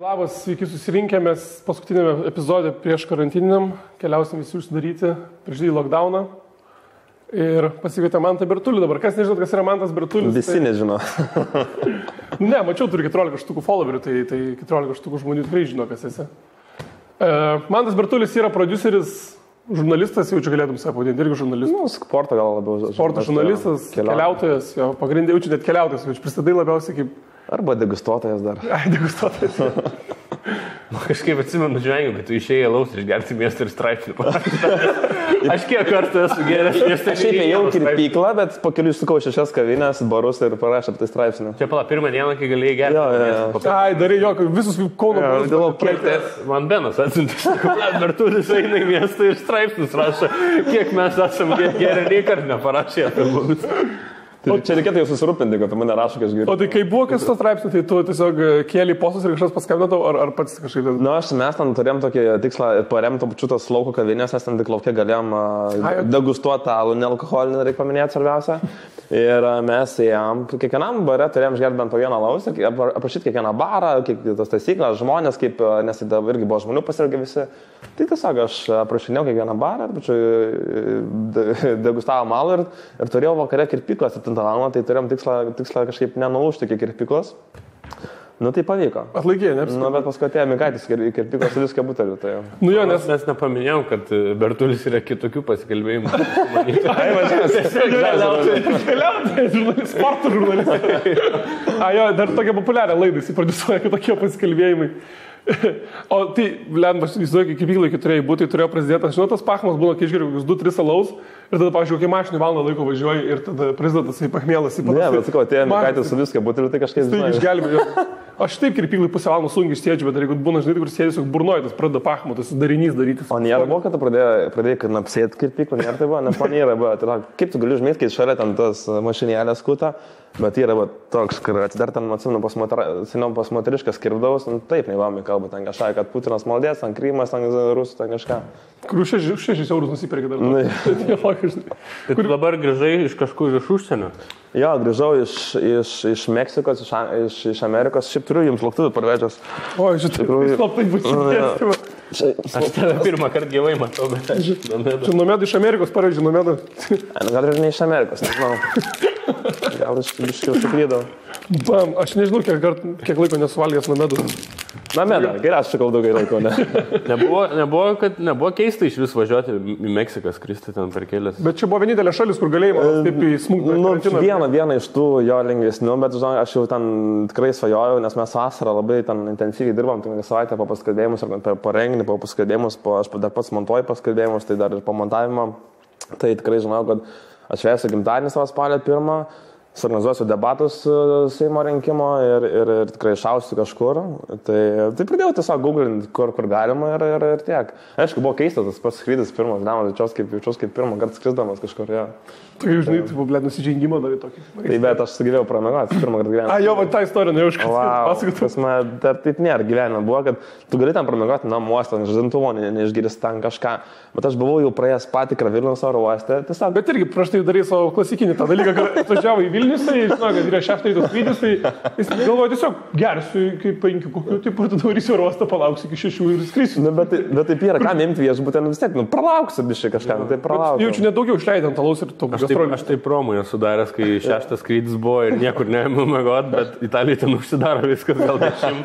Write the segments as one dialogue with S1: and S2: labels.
S1: Labas, sveiki susirinkę, mes paskutinėme epizode prieš karantininiam keliausim visi užsidaryti prieš didį lockdowną ir pasikvietė Mantą Bertulį dabar. Kas nežinot, kas yra Mantas Bertulis?
S2: Visi nežino.
S1: Ne, mačiau, turi 14 štukų followerių, tai 14 štukų žmonių tikrai žino, kas esi. Mantas Bertulis yra produceris, žurnalistas, jau čia galėtum save pavadinti, irgi žurnalistas.
S2: Nu, sporto gal labiau.
S1: Sporto žurnalistas, keliautojas, jo pagrindė, jaučiu net keliautojas, jau pristatai labiausiai kaip...
S2: Arba degustuotojas dar.
S1: Ai, degustuotojas.
S3: Kažkaip atsimenu žvengiu, bet tu išėjai laus ir gerti miestą ir straipsnį. Aš kiek kartų esu geras miestą.
S2: Aš šiaip ėjau kirpyklą, bet po kelių išsukau 6 kavinės, barus ir parašė apie tai straipsnį.
S3: Čia pala, pirmą dieną, kai galėjai gerti.
S1: Ai, darai jo, visus Kauno
S3: barus. Man Benas atsiuntė, Bertulis eina į miestą ir straipsnius rašo, kiek mes esam gerai, nei kart neparašė apie mumis.
S2: Čia reikėtų jau susirūpinti, kad mane rašo, kai aš geriu.
S1: O tai kai buvo kas to straipsnio, tai tu tiesiog kėlė postus ir kažkas paskambino ar pats kažkaip...
S2: Nu, mes ten turėjom tokį tikslą paremti pačiutas lauko kavinės, nes ten tik laukia galėjom degustuoti alų, nealkoholinį, reikia paminėti svarbiausia. Ir mes ėjom, kiekvienam bare turėjom išgerti bent po vieną alaus ir aprašyti kiekvieną barą, tas taisyklės, žmonės, kaip, nes tai irgi buvo žmonių pasirgę visi. Tai tiesiog aš aprašinėjau kiekvieną barą, degustavom alų ir turėjau vakare kirpyklas 7 val. Tai turėjom tikslą kažkaip nenulūžti iki kirpyklos. Nu tai pavyko.
S1: Atlaikė, ne?
S2: Nu, bet paskui atėjo Mikaitis kirpyklos su viską buteliu. Tai jau.
S1: Nu jo, nes
S3: mes nepaminėjom, kad Bertulis yra kitokių pasikalbėjimų.
S1: Ai, keliautojai, sporto žurnalistai. Ai, jo, dar tokia populiaria laida, jis prodiusuoja kitokie pasikalbėjimai. O tai, lemba, aš įsivaizduoju, kai kirpyklai turėjai būti, tai turėjo prezidentas. Žinot, tas pachmas būna, kai išgeriu 2-3 alaus ir tada, pavyzdžiui, kai mašinį valandą laiko važiuoji ir tada prezidentas į pachmėlas į
S2: Ne, bet sakau, atėjo Mikaitis su viską buteliu, tai kažkaip
S1: žinai. Išgelbėjo. Aš taip kirpyklai pusę valandos sunkiai išsėdžiu, bet jeigu būna, žinai, kur sėdžiu, burnoji, tas pradeda pachmo, tas darinys daryti.
S2: O nėra buvo, kad tu pradėjai kad apsėti kirpyklą, nėra tai buvo, nes man nėra buvo. Tai, kaip tu gali užmėti, kai šalia ten tas mašinėlės skuta, bet yra toks, kur atsidar ten, atsimenu, seniau pas moteriškas kirpdavus, nu, taip neįvami kalba, ten kažką, kad Putinas maldės, ten Krymas, ten Rusų, ten kažką.
S1: Kurių 6 eurus nusipirkė dar.
S3: Tai tu dabar grįžai iš kažkur iš užsienio?
S2: Jo, grįžau iš Meksikos, iš Amerikos, šiaip turiu jums lauktuvių parvežęs.
S1: O, šitai slaptai būčiau.
S3: Aš tave pirmą kartą gyvai matau, bet aš
S1: Čia Nomeda iš Amerikos pareidžiu, Nomeda.
S2: Gal ir ne iš Amerikos, nežinau. Gal iš biškiau suklydau.
S1: Bam, aš nežinau, kiek laiko nesuvalgęs Nomedus.
S2: Nomeda, geriausiai sakau daugai laiko, ne?
S3: Nebuvo keista iš vis važiuoti į Meksiką, skristi ten per kelias.
S1: Bet čia buvo vienintelė šalis, kur galėjai taip į smūgį.
S2: Nu, viena iš tų jo lengvesnių, bet žinok, aš jau ten tikrai svajojau, nes mes vasarą labai ten intensyviai dirbam, tai savaitę po paskalbėjimus, po renginį, po paskalbėjimus, aš dar pats montuoju paskalbėjimus, tai dar ir po montavimo. Tai tikrai žinau, kad aš švęsiu gimtadienį savo spalio 1. Suorganizuosiu debatus Seimo rinkimo ir tikrai šausiu kažkur. Tai pradėjau tiesiog googlinti, kur galima ir tiek. Aišku, buvo keistas tas pats skrydis pirmas, jaučiaus kaip pirmą kartą skrisdamas kažkur. Ja.
S1: Tai žinai, tai buvo nusižengimo dar į tokį.
S2: Tai bet aš sugyvėjau pramegoti pirmą kartą gyvenime.
S1: Jo, va tą istoriją nejau iškasyti.
S2: Dar taip nėra gyvenime. Buvo, kad tu gali ten pramegoti namuose, žadintuvo, neišgiris ten kažką. Bet aš buvau jau praėjęs patikrą Vilniaus oro uoste.
S1: Bet irgi prieš tai darai savo klasikinį tą dalyką, kad atvažiavo į Vilnius, tai žinau, kad yra 6 ryto skrydis, tai jis galvoja tiesiog gersiu iki 5 kokių, tai tada varysiu oro uostą, palauksiu iki 6 ir skrisiu.
S2: Bet taip yra, kam imti viešbutį, vis tiek, pralauksiu biškai kažką, tai pralauksiu.
S1: Jaučiu nedaugiau išleidant alaus ir to.
S3: Aš taip promui esu daręs, kai 6 skrydis buvo ir niekur neėmiau miegot, bet Italijai ten užsidaro viskas gal 10.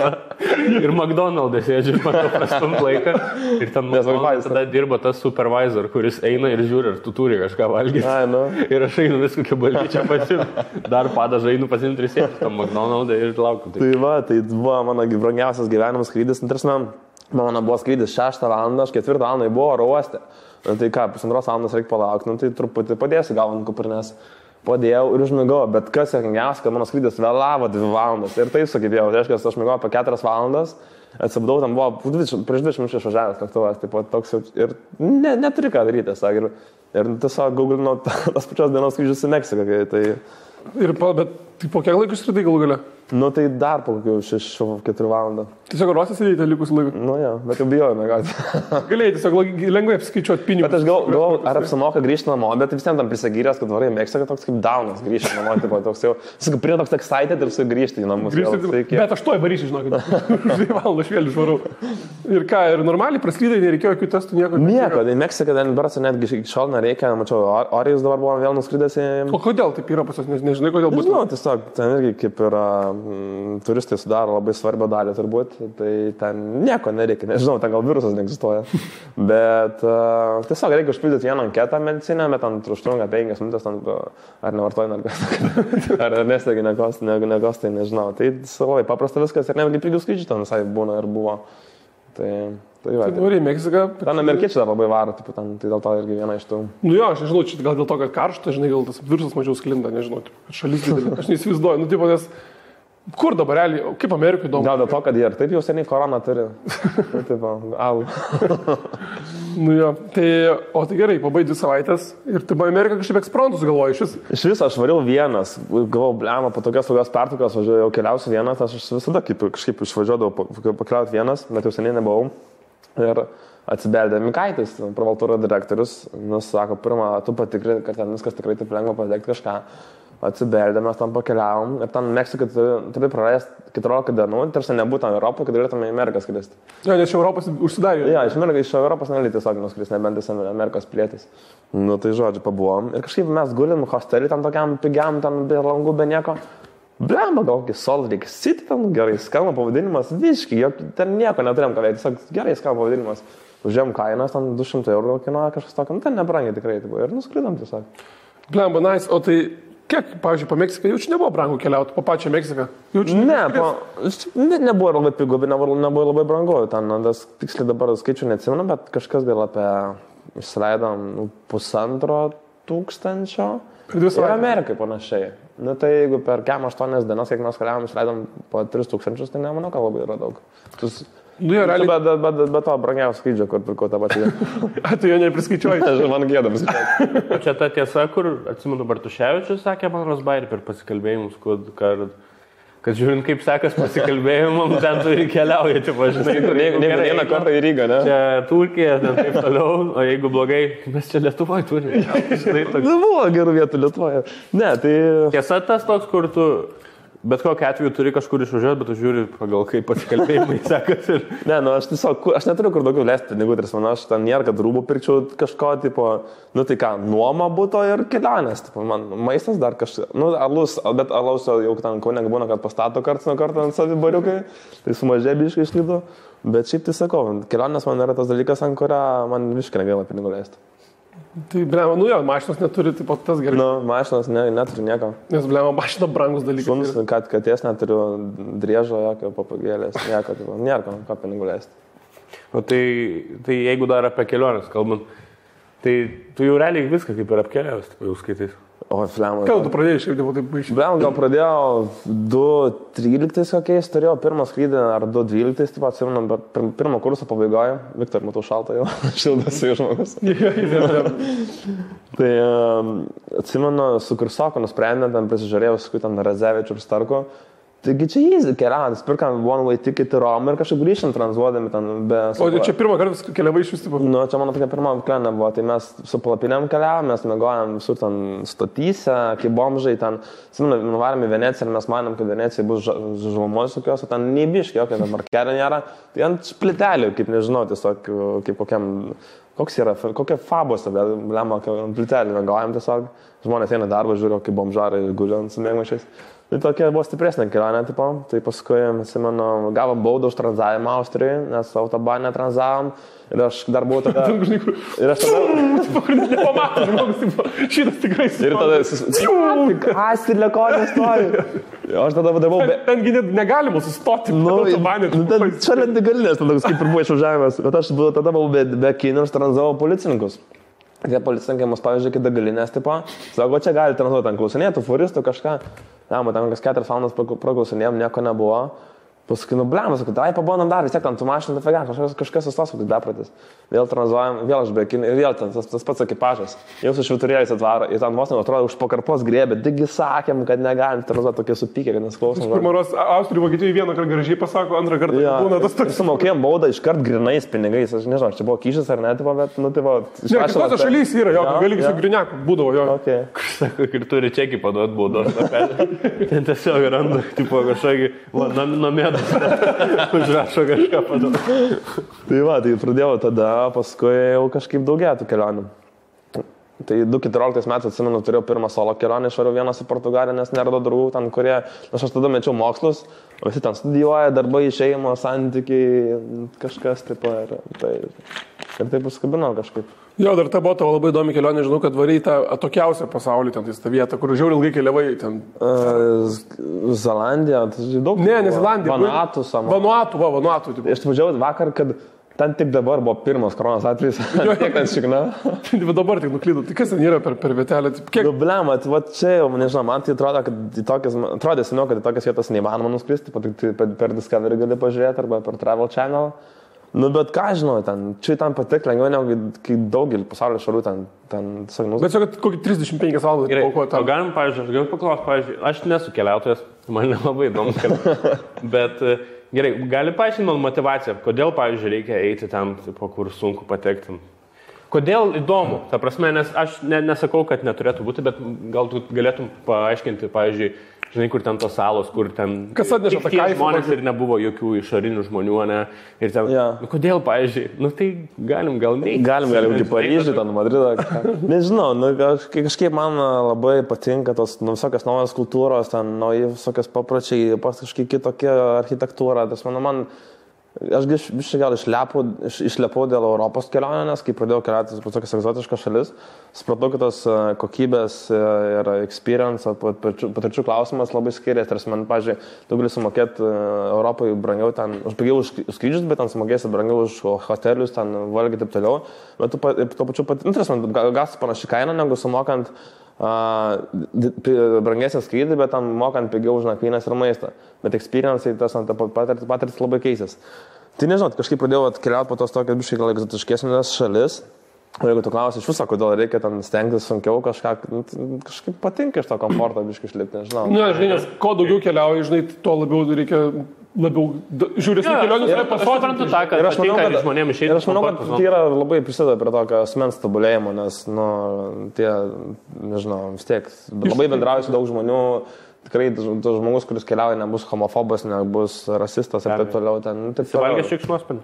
S3: Ir McDonald's sėdžiu, matau prastumt laiką. Ir ten tada dirba tas supervisor, kuris eina ir žiūri, ar tu turi kažką valgyti. Ir aš einu viską kaip balyčią pasimti. Dar padažą einu pasimti ir sėdžiu tam McDonald's ir laukiu.
S2: Tai buvo mano brangiausias gyvenimas skrydis. Mano buvo skrydis 6 val. Aš 4 val. Buvo oro uoste. Tai ką, 1,5 valandos reikia palaukti, tai truputį padėsiu gal ant kuprinės. Padėjau ir užmigau, bet kas juokingiausia, kad mano skrydis vėlavo 2 valandas. Ir taip sugebėjau, tai reiškia, aš migau apie 4 valandas, atsibudau, tam buvo prieš 20 minučių išvažiavęs lėktuvas, taip pat toks ir neturi ką daryti, ir tiesiog googlinau tas pačios dienos skrydžius į Meksiką. Tai...
S1: Bet Tai po kiek laiko išskridai galų gale?
S2: Nu tai dar po kokių 6-4 valandą.
S1: Tiesiog ruosis įdėti likus laikų.
S2: Nu jo, bet jau bijojame, kad.
S1: Galėjai tiesiog lengvai apskaičiuoti pinigus.
S2: Bet aš galvoju, ar apsimoka grįžti namo, bet vis vien tam prisagyręs, kad varai mėgsta, kad toks kaip daunas grįžti namo, tipo, toks jau, sakau, prie toks excited ir su grįžti į namus.
S1: Bet aš to įvarysiu, žinokit. 2 valandas vėl išvarau. Ir ką, ir normaliai praslydai, nereikėjo jokių testų, nieko.
S2: Nieko, į Meksiką, Edinburgh netgi iki šiol nereikia, mačiau, Orijus dabar buvo vėl nuskridęs į...
S1: O kodėl taip yra pas jūs, nežinai, kodėl būtų?
S2: Nežinau, tiesiog, ten irgi kaip yra, turistai sudaro labai svarbią dalį turbūt, tai ten nieko nereikia, nežinau, ten gal virusas neegzistuoja, bet tiesiog reikia užpildyti vieną anketą medicinę, bet ten užtrunka 5 minutės, ar nevartoji narkotikų, ar nestegi nekos, tai nežinau, tai labai paprasta viskas ir netgi pigių skaičių ten visai būna ir buvo. Tai va.
S1: Tai nori į Meksiką.
S2: Ten amerikiečiai dar labai varo, tai dėl to irgi viena iš tų.
S1: Nu jo, aš nežinau, čia gal dėl to, kad karšta, žinai, gal tas virusas mažiau sklinda, nežinau, kad šalis didelė. Aš neįsivaizduoju, nu tipo, nes kur dabar realiai, kaip Amerikai įdomu?
S2: Gal dėl to, kad jie ir taip jau seniai koroną turi. Tipo, au.
S1: Nu jo, tai, o tai gerai, pabai 2 savaitės ir tai buvo Amerika kažkaip eksprontus galvoju iš vis.
S2: Iš viso aš variau vienas, galvojau, blema, po tokios saugios pertraukos važiuoju, jau keliausiu vienas, aš visada kažkaip išvažiuodavau pakeliauti vienas, bet jau seniai nebuvau. Ir atsibeldė Mikaitis, pravaltūro direktorius, sako, pirmą, tu patikri, kad ten viskas tikrai taip lengva padėkti kažką. Atsibeldė, mes tam pakeliavom ir ten Meksikai turi prarasti 14 dienų, tarsi nebūtų Europoje, kad galėtume į Ameriką skristi.
S1: Ja, nes iš Europos užsidarė.
S2: Ja, iš Europos negali tiesiog nuskristi, nebent esi Amerikos pilietis. Nu tai žodžiu, pabuvom. Ir kažkaip mes gulim hostelį tam tokiam pigiam, ten be langų, be nieko. Blemba, gal kokį Salt Lake City, ten gerai skamba pavadinimas, visiškai, ten nieko neturėjom ką veikti, tiesiog gerai skamba pavadinimas. Užėjom kainas, ten 200 eurų kainuoja kažkas tokio, ten nebrangiai tikrai, ir nuskridom tiesiog.
S1: Blemba, nice, o tai kiek, pavyzdžiui, po Meksiką jaučiu nebuvo brangu keliauti, po pačią Meksiką?
S2: Nebuvo labai pigu, bet nebuvo labai brangu, ten, tiksliai dabar skaičių neatsimenu, bet kažkas gal apie, išsileidom 1500. Ir Amerikai panašiai. Nu tai jeigu per 8 dienas, kiek mes keliavom, išleidom po 3000, tai nemanau, kad labai yra daug. Bet to brangiausio skrydžio, kur pirkau tą pačią.
S1: Tu jo nepriskaičiuoji.
S2: Man gėda priskaičiuoji.
S3: Čia ta tiesa, kur, atsimenu, Bartuševičius sakė man Rosbairį per pasikalbėjimus, kad žiūrint, kaip sekas pasikalbėjimam, ten tu ir keliauji, čia važinai.
S2: Ne vieną kartą į Rygą, ne?
S3: Čia Turkija, ten taip toliau, o jeigu blogai, mes čia Lietuvoje turime.
S2: Buvo gerų vietų Lietuvoje. Ne, tai...
S3: Tiesa tas toks, kur tu bet kokiu atveju turi kažkur išvažiuoti, bet tu žiūri pagal kaip pasikalbėjimai sekas.
S2: Ne, nu aš tiesiog, aš neturiu kur daugiau leisti pinigų, tai man aš ten nėra, kad rūbų pirkčiau kažko, tipo, nu tai ką, nuoma būtų ir kelionės, tipo, man maistas dar kažkas, nu alus, bet alaus jau ten Kaune būna, kad pastato karts nuo karto ant savibariukai, tai sumažė biškai išlydu, bet šiaip tai sakau, kelionės man yra tas dalykas, ant kurio man visiškai negaila pinigų leisti.
S1: Tai, blema, nu jo, mašinos neturi, taip pat tas gerai.
S2: Nu, mašinos neturi nieko.
S1: Nes, blema, mašina brangus dalykas.
S2: Šuns, kad katės neturiu driežo, jokio papagėlės, nieko, tipo, nėra ką pinigų leisti.
S3: O tai jeigu dar apie keliones kalbant, tai tu jau realiai viską kaip ir apkeliavęs, jau skaitais.
S2: O, flema.
S1: Ką tu pradėjai šiaip, taip baigščiai?
S2: Blema, gal pradėjau 2.13 kokiais, turėjau pirmą skrydį, ar 2.12, taip atsimenu, bet pirmo kurso pabaigoje, Viktor, matau šaltą jau, šildasi žmogus. Tai atsimenu, su kursoku nusprendėm, ten prisižiūrėjau, su ten Razevičiu ir Starku. Taigi čia easy keliavimas, pirkam one way ticket į Romą ir kažkaip grįžtant tranzuodami ten be...
S1: O čia pirmą kartą keliavai iš vis tipo?
S2: Nu, čia mano tokia pirma kelionė buvo, tai mes su palapinėm keliavom, mes mėgojom visur ten stotyse, kaip bomžai, ten, nuvarėm į Veneciją ir mes manom, kad Venecijai bus žalumos tokios, o ten neįbiškai, jokio dabar kelio nėra, tai ant splitelių, kaip nežinau, tiesiog kaip kokiam... Koks yra, kokia fabose, bet lemma, ant plitelį mėgojom tiesiog, žmonės eina darbą, žiūrėjo, kaip bomžarai guli ant sumėgmačiais. Tai tokia buvo stipresnė kelionė, tipo. Tai paskui, atsimenu, gavom baudą už tranzavimą Austrijoje, nes autobane tranzavom. Ir aš dar buvau tada... Ir aš tada...
S1: Nepamato, žmogus, šitas tikrai
S2: ir tada... Astilėkonė stovi. Aš tada vadavau...
S1: Tengi negalima sustoti.
S2: Nu, šalia degalinės, tada kaip ir buvo išvažiavimas. Bet aš tada buvau be kinų ir tranzavau policininkus. Tie policininkai mus pavyzdžiui, kai degalinės, tipo, sako, čia gali tranzuoti ant klausinėtų, furistų kažką. Ne, man ten kas 4 valandas praklausinėjom, nieko nebuvo. Paskui, blemas, sakau, tai pabandom dar, vis tiek ten tu mašiną, tai kažkas sustos, kad bepratis. Vėl tranzuojam, vėl aš bekin ir vėl ten tas pats ekipažas. Jau su švyturėliais atvaro ir ten vos atrodo už pakarpos grėbė, digi sakėm, kad negalim tranzuoti tokie supykę, kad nesklausom.
S1: Pirmaros Austrijų Vokietijai vieną kartą gražiai pasako, antrą kartą būna tas toks.
S2: Sumokėjom baudą iškart grinais pinigais, aš nežinau, čia buvo kyšis ar ne, bet, nu, tai va.
S1: Ne, kitose šalyse yra, jo, gali su griniaku, būdavo, jo.
S2: Okay.
S3: Sako, ir turi čekį paduoti baudos. Ten tiesiog randa, tipo, kažkokį, nomėdas, užrašo kažką paduoti.
S2: Tai va, tai pradėjau tada, paskui jau kažkaip daugiau tų kelionių. Tai 2014 metais, atsimenu, turėjau pirmą solo kelionę, išvariau vienas į Portugaliją, nes neradau draugų ten, kurie, aš tada mečiau mokslus, visi ten studijuoja, darbai, šeimo, santykiai, kažkas taip ir taip užskabinau kažkaip.
S1: Jo, dar ta buvo tavo labai įdomi kelionė, žinau, kad variai tą atokiausią pasaulį, ten tą vietą, kur žiauriai ilgai keliavai ten.
S2: Zelandija, tai daug.
S1: Ne Zelandija.
S2: Vanuatu. Aš važiavau vakar, kad ten tik dabar buvo pirmas koronos atvejis. Kiek ten šikna?
S1: Dabar tik nuklydau. Tai kas ten yra per vietelę?
S2: Kiek... Blema, va čia jau, nežinau, man tai atrodo, kad atrodė seniau, kad į tokias vietas neįmanoma nuskristi, per Discovery gali pažiūrėti arba per Travel Channel. Nu, bet ką žinau, čia tam patik lengviau, negu kai daugelį pasaulio šalių ten sagnus.
S1: Bet kad kokį 35 valandą.
S3: Gerai, o galim, pavyzdžiui, aš galiu paklausti, aš nesu keliautojas, man nelabai įdomus keliautojas, bet gerai, gali paaiškinti man motivaciją, kodėl, pavyzdžiui, reikia eiti ten, tipo, kur sunku patekti. Kodėl įdomu, ta prasme, nes aš nesakau, kad neturėtų būti, bet gal tu galėtum paaiškinti, pavyzdžiui, žinai, kur ten tos salos, kur ten
S1: kas atneša tą kaifą
S3: žmonės ir nebuvo jokių išorinių žmonių, ne? Ir ten, nu, kodėl, pavyzdžiui, nu tai galim gal neiti.
S2: Galim į Paryžių, ten Madridą. Nežinau, nu, kažkaip man labai patinka tos visokios naujos kultūros, ten nauji visokios papročiai, kažkaip kitokia architektūra. Tas, aš gal išlepau dėl Europos kelionę, nes kai pradėjau keliauti po tokias egzotiškas šalis, supratau, kad tos kokybės ir experience, patirčių klausimas labai skiriasi. Tarsi man, pavyzdžiui, tu gali sumokėti Europai brangiau ten, aš pigiau už skrydžius, bet ten sumokėsi brangiau už hotelius, ten valgį taip toliau. Bet tuo pačiu gausi panaši kaina, negu sumokant brangesnį skrydį, bet tam mokant pigiau už nakvynės ir maistą. Bet experience, tas patirtis labai keisės. Tai nežinau, kažkaip pradėjau keliauti po tos tokias biškai gal egzotiškesnės šalis. O jeigu tu klausi iš viso, kodėl reikia ten stengtis sunkiau kažkaip patinka iš to komforto biškai išlipti, nežinau.
S1: Ne, žinai, nes kuo daugiau keliauji, žinai, tuo labiau reikia žiūrėsnių kelionės yra
S3: pasodinti tą, kad patinka žmonėms išeiti.
S2: Ir aš manau, kad tai yra labai prisideda prie tokio asmens tobulėjimo, nes, nu, tie, nežinau, vis tiek, labai bendrauju su daug žmonių, tikrai tas žmogus, kuris keliauja, nebus homofobas, nebus rasistas ir taip toliau.
S3: Valgęs šikšnosparnį.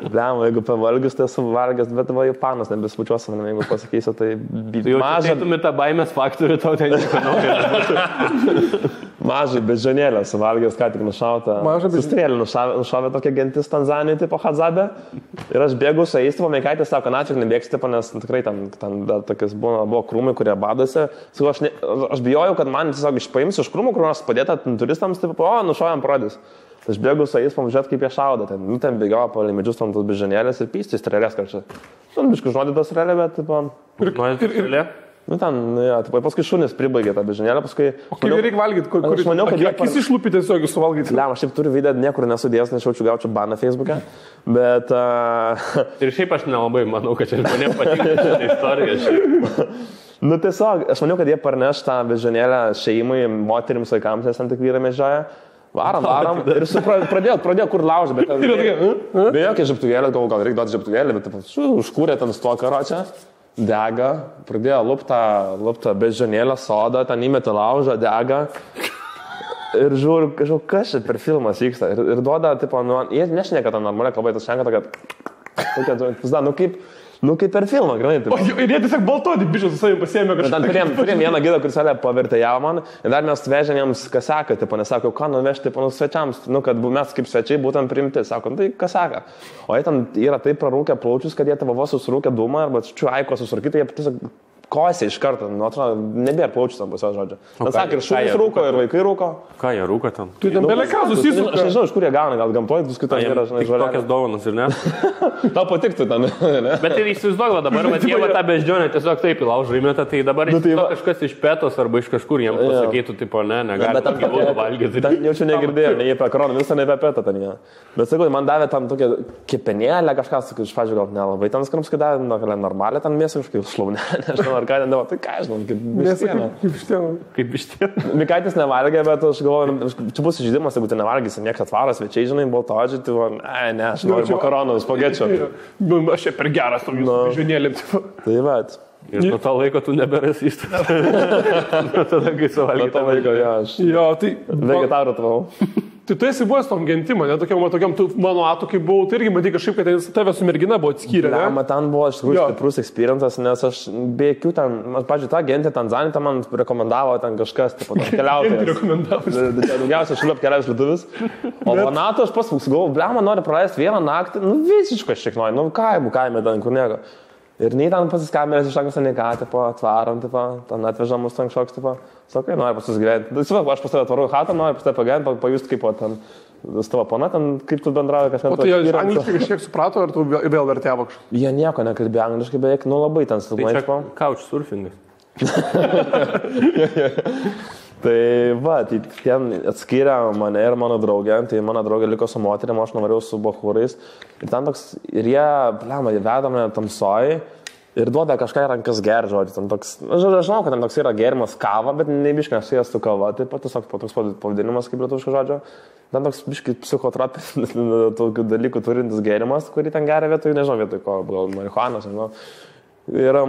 S2: Blem, jeigu pavalgius, tai esu valgęs, bet va, panas nebespučiuosi man, jeigu pasakysiu, tai
S3: mažą. Tu tą baimės faktorių, tau ten nežinau.
S2: Mažai bežionėlę suvalgęs, ką tik nušautą. Sustrėlį nušavė tokia gentis Tanzanijoje, tipo Hadzabė. Ir aš bėgu su jais, tipo Meikaitė sako, na, čia nebėgsi, tipo, nes tikrai ten dar tokias buvo krūmai, kurie badosi. Aš bijojau, kad man tiesiog išpaims iš krūmų, kur nors padėta turistams, tipo, nušovėm prodys. Aš bėgu su jais, pamažiūrėt, kaip jie šaudo. Ten bėgiojo palei medžius tam tos bežionėlės ir pystis strėlės kažkaip. Biškai žodį tos strėlė, bet, tipo... Nu ten, ja, tai paskui šunis pribaigė tą bežionėlę, paskui...
S1: O kaip reikia valgyti, kur
S2: aš maniau, kad
S1: akis išlūpį tiesiog suvalgyti?
S2: Ne, aš šiaip turiu video, niekur nesudėjęs, nes gaučiau baną Facebook'e, bet...
S3: Ir šiaip aš nelabai manau, kad čia žmonėm patinka šitą istoriją.
S2: Nu tiesiog, aš maniau, kad jie parneš tą bežionėlę šeimai, moterims, vaikams, nes ten tik vyrai medžioja. Varam ir pradėjo kur laužti, bet... Be jokia žibtuvėlė, gal reikia duoti žibtuvėlį, bet užkūrė ten su to karočią. Dega, pradėjo luptą bežionėlę sodą, ten įmetė laužą, dega ir žiūriu, kažkaip, kas čia per filmas vyksta ir duoda, tipo, jie nešneka tą normalią kalbą, tas šneka tokia, nu kaip per filmą, granai.
S1: Ir jie tiesiog baltodį bišus su savimi pasiėmė kažką.
S2: Turėjom vieną gidą, kuris pavertė ją man ir dar mes vežėm jiems kasaką, tipo, nesako, ką nuvežti, tipo, svečiams, nu, kad mes kaip svečiai būtum priimti, sako, tai kasaką. O jie ten yra taip prarūkę plaučius, kad jie tavo vos susirūkę dūmą arba čiuaiko susirūkyti, jie tiesiog kosė iš karto, nu, atrodo, nebėra plaučių tam pusė žodžio. Ten sakė, ir šunys rūko, ir vaikai rūko.
S3: Ką jie rūko ten?
S1: Tu ten beleka susisuka.
S2: Aš nežinau, iš kur jie gauna, gal gamtoje, paskui ten yra, žinai, žodžiu.
S3: Tokias dovanas, ir ne?
S2: Tau patiktų ten, ne?
S3: Bet ir įsivaizduok dabar, bet jie tą beždžionę tiesiog taip įlaužo įmeta, tai dabar kažkas iš pėtos arba iš kažkur jiems pasakytų, tipo, ne, negali gyvūnų valgyti.
S2: Ten jaučiu negirdėjau, nei apie koroną, visą ne apie pėtą ten jie. Bet sakau, man davė tam tokią kepenėlę, kažką, iš pradžių gal nelabai ten skrams, kai davė, normalią ten mėsą kažkaip šlaunę, nežinau, ar ką ten davo, tai ką žinau, kaip vištiena.
S3: Kaip vištiena.
S2: Mikaitis nevalgė, bet aš galvoju, čia bus žaidimas, jeigu tu nevalgysi, niekas atvaras, svečiai, žinai, baltoodžiai, tai ne, aš noriu makaronų, spagečių.
S1: Aš čia per geras tom jūsų žionėlėm.
S2: Tai va.
S3: Ir nuo to laiko tu neberasystas. Nuo tada, kai suvalgai.
S2: Nuo to laiko, aš.
S1: Jo, tai...
S2: Vegetarų tvau.
S1: Tai tu esi buvęs tom gentim, ne? Tokiam tu mano atu, kai buvau, tai irgi matai kažkaip, kad tave su mergina buvo atskyrę, ne?
S2: Ne, ten buvo iš tikrųjų stiprus experiences, nes aš be jokių ten, pavyzdžiui, tą gentį Tanzaniją ten man rekomendavo ten kažkas, tipo, ten keliautojas. Daugiausiai šilap keliaus lietuvis. O Vanato aš pas galvoju, blema, nori praleisti vieną naktį, nu visiškai šiek nori, nu kaime ten, kur nieko. Ir nei ten pasiskambinęs iš anksto, nei ką, tipo, atvarom, tipo, ten atvežam mus ten kažkoks, tipo, sakai, nori pas jūs gyventi. Aš pas tave atvarau hatą, nori pas tave pagyventi, pajusti kaip ten, su tavo pana, ten, kaip tu bendrauji kažką.
S1: O tai jie angliškai kažkiek suprato, ar tu vėl vertėvo kažką?
S2: Jie nieko nekalbėjo angliškai, beveik, nu labai ten silpnai.
S3: Tai čia couchsurfingas.
S2: Tai va, tai ten atskyrė mane ir mano draugę, tai mano draugė liko su moterim, aš nuvarėjau su bachūrais. Ir ten toks, ir jie, blema, jie veda mane tamsoj ir duoda kažką į rankas gerti, žodžiu. Ten toks, aš žinau, kad ten toks yra gerimas kava, bet nebiškai nesujęs su kava, taip pat tiesiog toks pavadinimas kaip lietuviško žodžio. Ten toks biškai psichotropinis tokių dalykų turintis gerimas, kurį ten geria vietoj, nežinau, vietoj ko, gal marihuanos, nežinau. Ir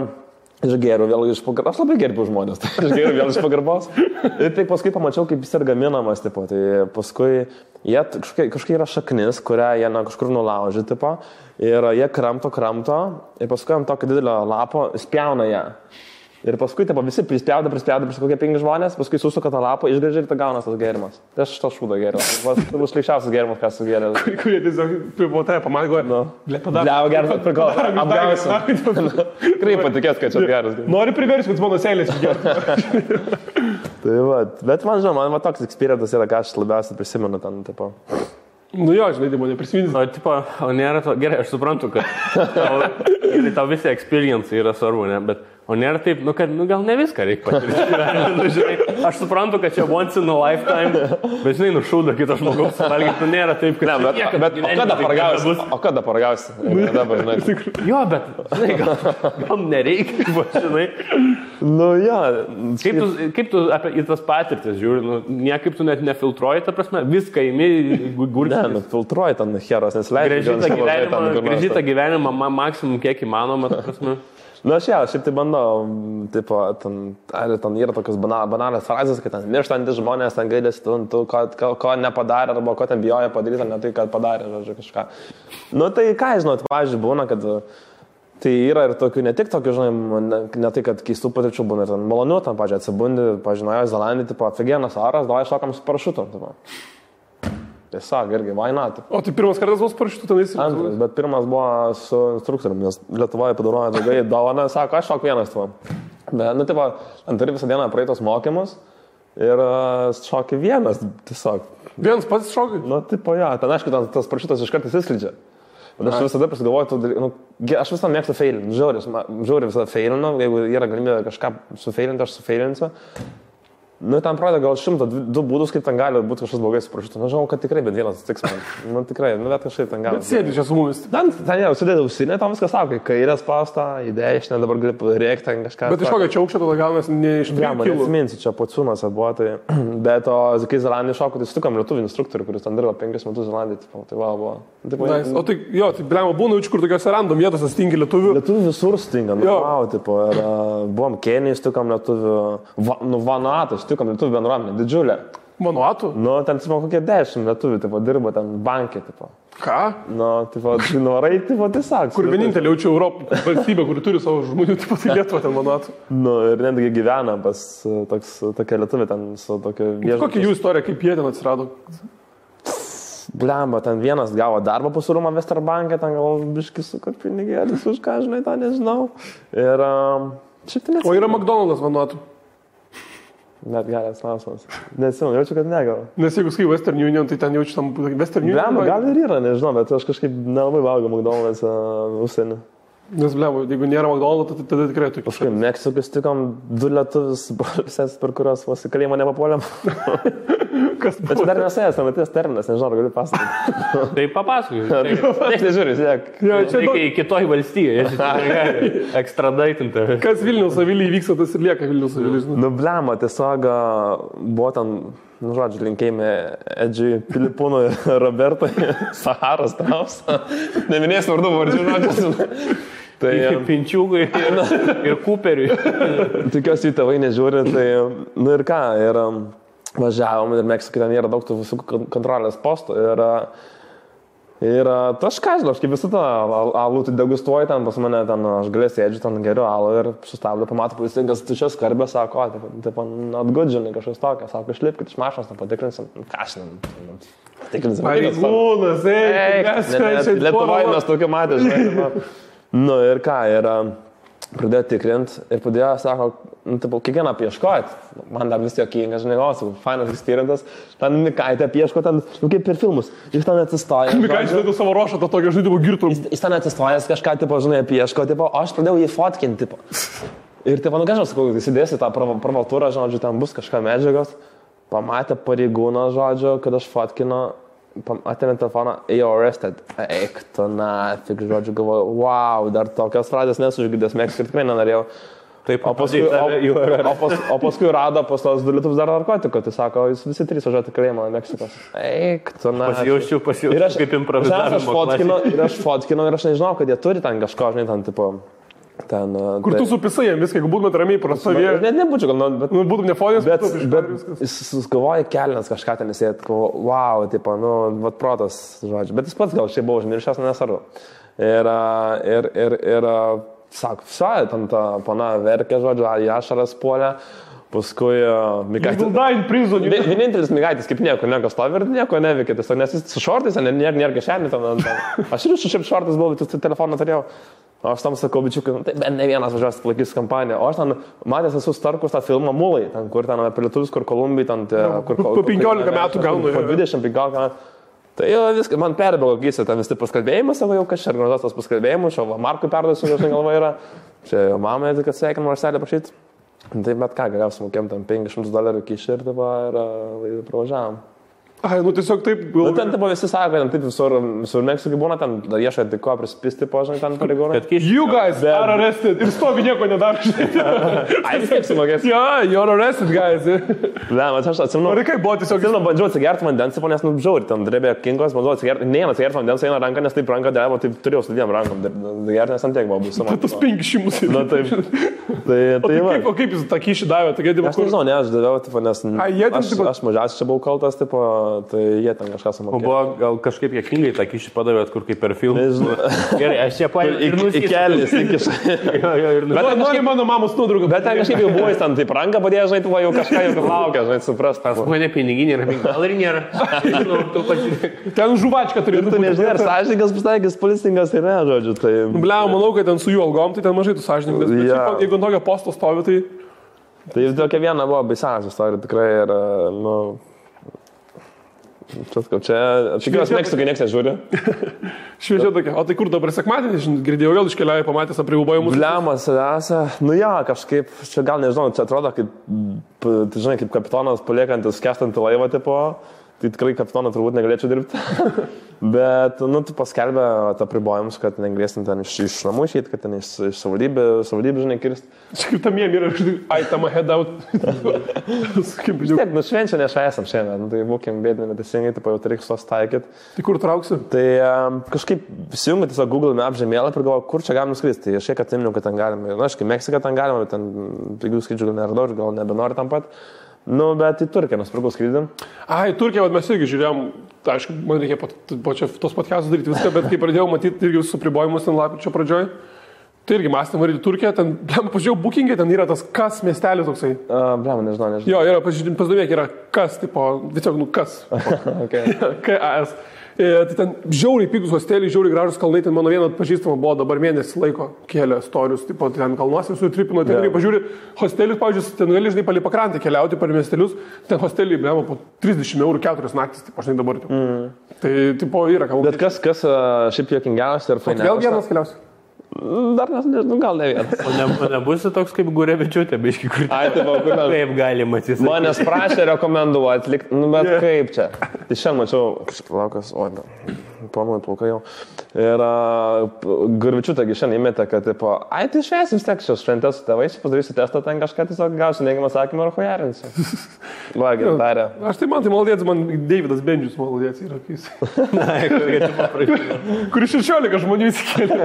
S2: aš geriu vėl iš pagarbos, aš labai gerbiu žmonės, tai aš geriu vėl iš pagarbos. Ir tai paskui pamačiau, kaip jis ir gaminamas, tipo, tai paskui jie kažkokia yra šaknis, kurią jie kažkur nulaužė, tipo, ir jie kramto, ir paskui ant tokio didelio lapo spjauna ją. Ir paskui taip, visi prispjauda, kokie 5 žmonės, paskui susuka tą lapą, išgrėžia ir tą gaunas tas gėrimas. Tai aš tą šūdą gėriau. Tai bus šleičiausias gėrimas, ką esu gėręs.
S1: Kurie tiesiog po tai pamangoja.
S2: Bliau, geras, prikol. Apgausiu. Tikrai patikės, kad čia geras.
S1: Nori priversti, kad mano seilės geras.
S2: Tai va, bet man žinoma, man toks experiences yra, ką aš labiausiai prisimenu ten, tipo.
S1: Nu jo, žinai, tai mane prisiminti.
S3: O, tipo, o nėra to, gerai, aš suprantu, kad tau visi experience yra svarbu, ne, bet o nėra taip, nu, kad, nu, gal ne viską reikia patirti. Nu, žinai, aš suprantu, kad čia once in a lifetime, bet, žinai, nušūda kito žmogaus suvalgyti, nu, nėra taip, kad...
S2: Ne, bet o kada paragausi?
S3: Jo, bet, žinai, gal nereikia, žinai.
S2: Nu, jo.
S3: Kaip tu į tas patirtis žiūri, nu, niekaip tu net nefiltruoji, ta prasme, viską įmi, gurkštis.
S2: Ne, nu, filtruoji ten heros, nes leidži.
S3: Grįžti tą gyvenimą maksimum kiek įmanoma, ta prasme.
S2: Na, šiaip tai bandau, tipo, ten yra tokios banalios frazės, kad ten mirštantis žmonės, ten gailės, tu ko nepadarė, arba ko ten bijoja padaryti, ne tai, kad padarė, žodžiu, kažką. Nu, tai ką, žinau, pavyzdžiui, būna, kad tai yra ir tokių, ne tik tokių, žinai, ne tai, kad keistų patirčių būna, ir ten malonių, tam, pavyzdžiui, atsibundi, pavyzdžiui, Naujoje Zelandijoje, tipo, aфиgenas oras, davai šokam su parašutu, tipo. Tiesiog, irgi, why not?
S1: O tai pirmas kartas buvo su parašutu tenais?
S2: Antras, bet pirmas buvo su instruktoriumi, nes Lietuvoje padarojo draugai dovaną, sako, aš šok vienas tuo. Bet, nu, tipo, ant turi visą dieną praeitos mokymus ir šoki vienas, tiesiog.
S1: Vienas pats šokai?
S2: Nu, tipo, ja, ten, aišku, tas parašutas iš karto įsislydžia. Bet aš visada prisigalvoju, nu, aš visada mėgstu feilinti, žiauriai visada feilinu, jeigu yra galimybė kažką sufeilinti, aš sufeilinsiu. Nu, ten pradeda gal 102 būdus, kaip ten gali būti kažkas blogai su parašutu. Nu, žinau, kad tikrai bent vienas atsitiks man. Nu, tikrai, nu, bet kažkaip ten gali.
S1: Bet sėdi čia su mumis.
S2: Ten jau sudėdė ausinę, tam viskas sako, kai kairė spausta, į dešinę, dabar gali rėkti ten kažką.
S1: Bet iš kokio čia aukščio tada gaunasi ne iš 3 kilų?
S2: Atsiminsiu, čia Pociūnas buvo, tai... Bet o kai Zelandijai šoko, tai sutikom lietuvių instruktorių, kuris ten dirbo 5 metus Zelandijai, tai va, buvo.
S1: Nice. O tai, jo, tai blema būna, kur tokiuose random vietose stingi lietuvių.
S2: Lietuvių visur stinga, nu, wow, tipo, ir buvom Kenijai, sutikom lietuvių, Vanuatu, sutikom lietuvių bendruomenę, didžiulę.
S1: Vanuatu?
S2: Nu, ten, tipo, kokie 10 lietuvių, tipo, dirbo ten bankė, tipo.
S1: Ką?
S2: Nu, tipo, norai, tipo, tiesiog.
S1: Kur vienintelė jaučia Europą valstybė, kuri turi savo žmonių, tipo, tai Lietuva ten Vanuatu.
S2: Nu, ir netgi gyvena pas tokia lietuvė ten su tokia viešbučia.
S1: Kokia jų istorija, kaip jie ten atsirado?
S2: Blemba, ten vienas gavo darbą pusūrumą Westerbanke, ten gal biškis su kad pinigėlis už ką, žinai, tą nežinau. Ir Šiaip tai
S1: O yra McDonald's vanuotų.
S2: Net geras klausimas. Nesimenu, jaučiu, kad negal.
S1: Nes jeigu skai Western Union, tai ten jaučiu tam Western Union.
S2: Blema, gal ir yra, nežinau, bet aš kažkaip nelabai valgau McDonald's užsienį.
S1: Nes blema, jeigu nėra McDonald's, tai tada tikrai tokių.
S2: Kažkaip Meksikus tikom 2 lietuvius, per kurios vos į kalėjimą nepapuolėm.
S1: Kas
S2: Bet čia dar nesėjęs, nematės terminas, nežinau, ar galiu pasakoti.
S3: Tai papasakau.
S2: Niekas nežiūri, siek.
S3: Reikia į kitoj valstyje, ekstradaitinti.
S1: Kas Vilniaus Avilį įvyksta, tas ir lieka Vilniaus Avilį.
S2: Nu, blema, tiesiog buvo ten, nu, žodžiu, linkėjime Edžiui, Filipūnui, Robertui, Saharos Trausa. Neminėsiu vardų vardžių, žodžiu. Tai
S3: Pinčiūgui ir Cooperiui.
S2: Tikiuosi, jų tėvai nežiūri, tai, nu ir ką, ir važiavom ir Meksikai ten yra daug tų visų kontrolės postų ir aš ką žinau, aš kaip visą tą alų tai degustuoju ten pas mane, ten aš galės sėdžiu, ten geriu alų ir sustabdau, pamatau policinkas tušias skarbę, sako, taip, atgudžinai kažkas tokio, sako, išlipkit iš mašinos, ten patikrinsim, ką šiandien, patikrinsim.
S1: Pareigūnas,
S2: Lietuvoje mes tokio matė, žinai. Nu ir ką, ir pradėjo tikrint ir pradėjo, sako, nu, taip, kiekvieną apieškojat, man dar vis jokingas, žinai, o, fainas eksperientas, ten Mikaitė apieško, ten, nu, kaip per filmus, jis ten atsistoja.
S1: Mikaitė žinai savo ruošą, tą tokio žaidimo girtum.
S2: Jis ten atsistojęs kažką, tipo, žinai, apieško, tipo, o aš pradėjau jį fotkinti, tipo. Ir, tipo, nu, ką žinau, sakau, įsidėsi tą pravaltūrą, žodžiu, ten bus kažką medžiagos, pamatė pareigūną, žodžiu, kad aš fotkinu, atėmė telefoną, arrested. Eik, tu nafik, žodžiu, galvoju, wow, dar tokios frazės nesužgydęs, Meksikai tikrai nenorėjau.
S3: Taip,
S2: o paskui rado pas tos 2 lietuvius dar narkotikų, tai sako, jūs visi 3 važiuoti kalėjimą Meksikos. Eik, tu nafik.
S3: Pasijaučiu kaip improvizavimo.
S2: Ir aš fotkinau ir aš nežinau, kad jie turi ten kažko, žinai, ten, tipo... Ten,
S1: kur tu supisai jam viską, jeigu būtumėt ramiai prasavėję.
S2: Net nebūčiau, gal, bet...
S1: Nu, būtum nefonės,
S2: bet jis galvoja kelnes kažką ten įsėt, wow, tipo, nu, vat protas, žodžiu. Bet jis pats gal šiaip buvo užmiršęs, nesvarbu. Ir sako, visai, ten ta pana verkė, žodžiu, į ašaras puolė. Paskui Mikaitis. Vienintelis Mikaitis kaip nieko stovi ir nieko neveikia. Nes jis su šortais, nėra kišenį. Aš ir šiaip šortais buvau, bet telefoną turėjau. O aš tam sakau, bičiukai, tai ne vienas važiuos palaikys kampaniją. O aš ten matęs esu Starkus tą filmą Mulai, ten, kur ten apie lietuvius, kur Kolumbijai, ten...
S1: Po 15 metų gaunu.
S2: Po 20-15 metų. Tai jau viską, man perbėgo akise, ten visi paskalbėjimas, savo jau kažkaip organizuos tos paskalbėjimus, o Markui perduosiu, žinai, galva yra. Čia jau mamai, kad sveikin Marselį prašyti. Tai bet ką, galiausiai mokėm ten $500 kišį ir pravažiavam.
S1: Ai, nu tiesiog taip...
S2: Nu, ten tipo visi sako, ten taip visur Meksikai būna, ten ieškai tik ko prispisti, požinai, ten pareigūnai.
S1: You guys are arrested. Ir stovi nieko nedaro.
S2: Ai, vis tiek sumokės.
S1: Jo, you're arrested, guys.
S2: Ne, man aš atsimenu.
S1: Ar kaip buvo tiesiog...
S2: Atsimenu, bandžiau atsigerti vandens, nes, nu, žiauri, ten drebė kinkos, bandžiau atsigerti. Ne, atsigerti vandens eina ranką, nes taip ranka dėvo, taip turėjau su 2 rankom. Gerti, nes ant tiek buvo bus.
S1: Tas 500.
S2: Na, taip.
S1: O kaip jūs tą kyšį davė?
S2: Aš nežinau, ne, aš daviau, nes aš mažiausiai čia buvau kaltas, tai jie ten kažką sumokėjo.
S3: O buvo gal kažkaip jėkingai tą kyšį padavėt, kur kaip per filmą. Gerai, aš čia paėmiau.
S2: Į kelnis, įkišą.
S1: Bet nori mano mamos nuotrauką.
S2: Bet ten kažkaip jau buvo, jis ten taip ranką padėjo, žinai, tu jau kažką jau laukia, žinai, suprast.
S3: Pas mane piniginė yra, gal ir nėra.
S1: Ten žuvačka turėtų.
S2: Tu nežinai, ar sąžininkas pasitaikys, policininkas ir ne, žodžiu.
S1: Bliau, manau, kad ten su jų algom, tai ten mažai tu sąžininkas. Jeigu ant tokio posto stovi, tai...
S2: Tai tokia viena buvo baisiausia istorija, tikrai ir, nu... Čia, tikiuosi, Meksikai nieks nežiūri.
S1: Šviežia tokia. O tai kur dabar sekmadienį, girdėjau, vėl iškeliauja, pamatęs apribūbojimus.
S2: Bliamas, nu jo, kažkaip, čia gal nežinau, čia atrodo, kaip, žinai, kaip kapitonas paliekantis skęstantį laivą, tipo, tai tikrai kapitoną turbūt negalėčiau dirbti. Bet, nu, tu paskelbė apribojimus, kad negalėsim ten iš namų išeiti, kad ten iš savivaldybių, žinai, kirsti.
S1: Čia kaip tam jiem yra, aitama head out.
S2: Tiek, nu, švenčia nešvesam šiandien, tai būkim bėdami, bet teisingai, tai jau reikia sos taikyti.
S1: Tai kur trauksiu?
S2: Tai kažkaip įsijungiu tiesiog Google Maps žemėlapį ir galvoju, kur čia galim skristi. Tai aš šiek atsiminiau, kad ten galime. Na, aišku, Meksiką ten galima, bet ten pigių skrydžių gal neradau ir gal nebenori tam pat. Nu, bet į Turkiją nusipirkau skrydį.
S1: Ai, Turkiją, mes irgi žiūrėjom, aišku, man reikia po čia tos podcastus daryti viską, bet kai pradėjau matyti irgi su pribojimus ten lapkričio pradžioj, Tai irgi mąstėm varyti Turkiją, ten, pažiūrėjau, bookingai, ten yra tas kas miestelis toksai.
S2: Nežinau.
S1: Jo, yra, pasidomėk, yra kas, tipo, tiesiog, kas. KAS. Tai ten žiauriai pigus hosteliai, žiauriai gražus kalnai, ten mano viena pažįstama buvo dabar mėnesį laiko kėlė storius, tipo, ten kalnuose visur tripino, ten pažiūri, hostelius, pavyzdžiui, ten gali, žinai, palei pakrantę keliauti per miestelius, ten hosteliai, blemo, po 30 eurų 4 naktis, tipo, žinai, dabar. Tai, tipo, yra kalnai.
S2: Bet kas šiaip juokingiausia ir fainiausia?
S1: Vėl vienas keliausi.
S2: Dar nežinau, gal ne vienas.
S3: O nebūsi toks kaip Gurevičiūtė, biški, kur kaip galima atsisakyti.
S2: Manęs prašė rekomenduoti, bet kaip čia. Tai šiandien mačiau, kažkaip laukas, planuoju plaukai jau. Ir Gurevičiūtė šiandien įmetė, kad, tipo, tai švęs vis tiek šios šventės su tėvais, padarysi testą, ten kažką tiesiog gausi neigiamą atsakymą ir hujarinsi. Va, gerai, darė.
S1: Aš tai man maladėts, man Davidas Bendžius maladėts yra, kuris 16 žmonių įsikėlė.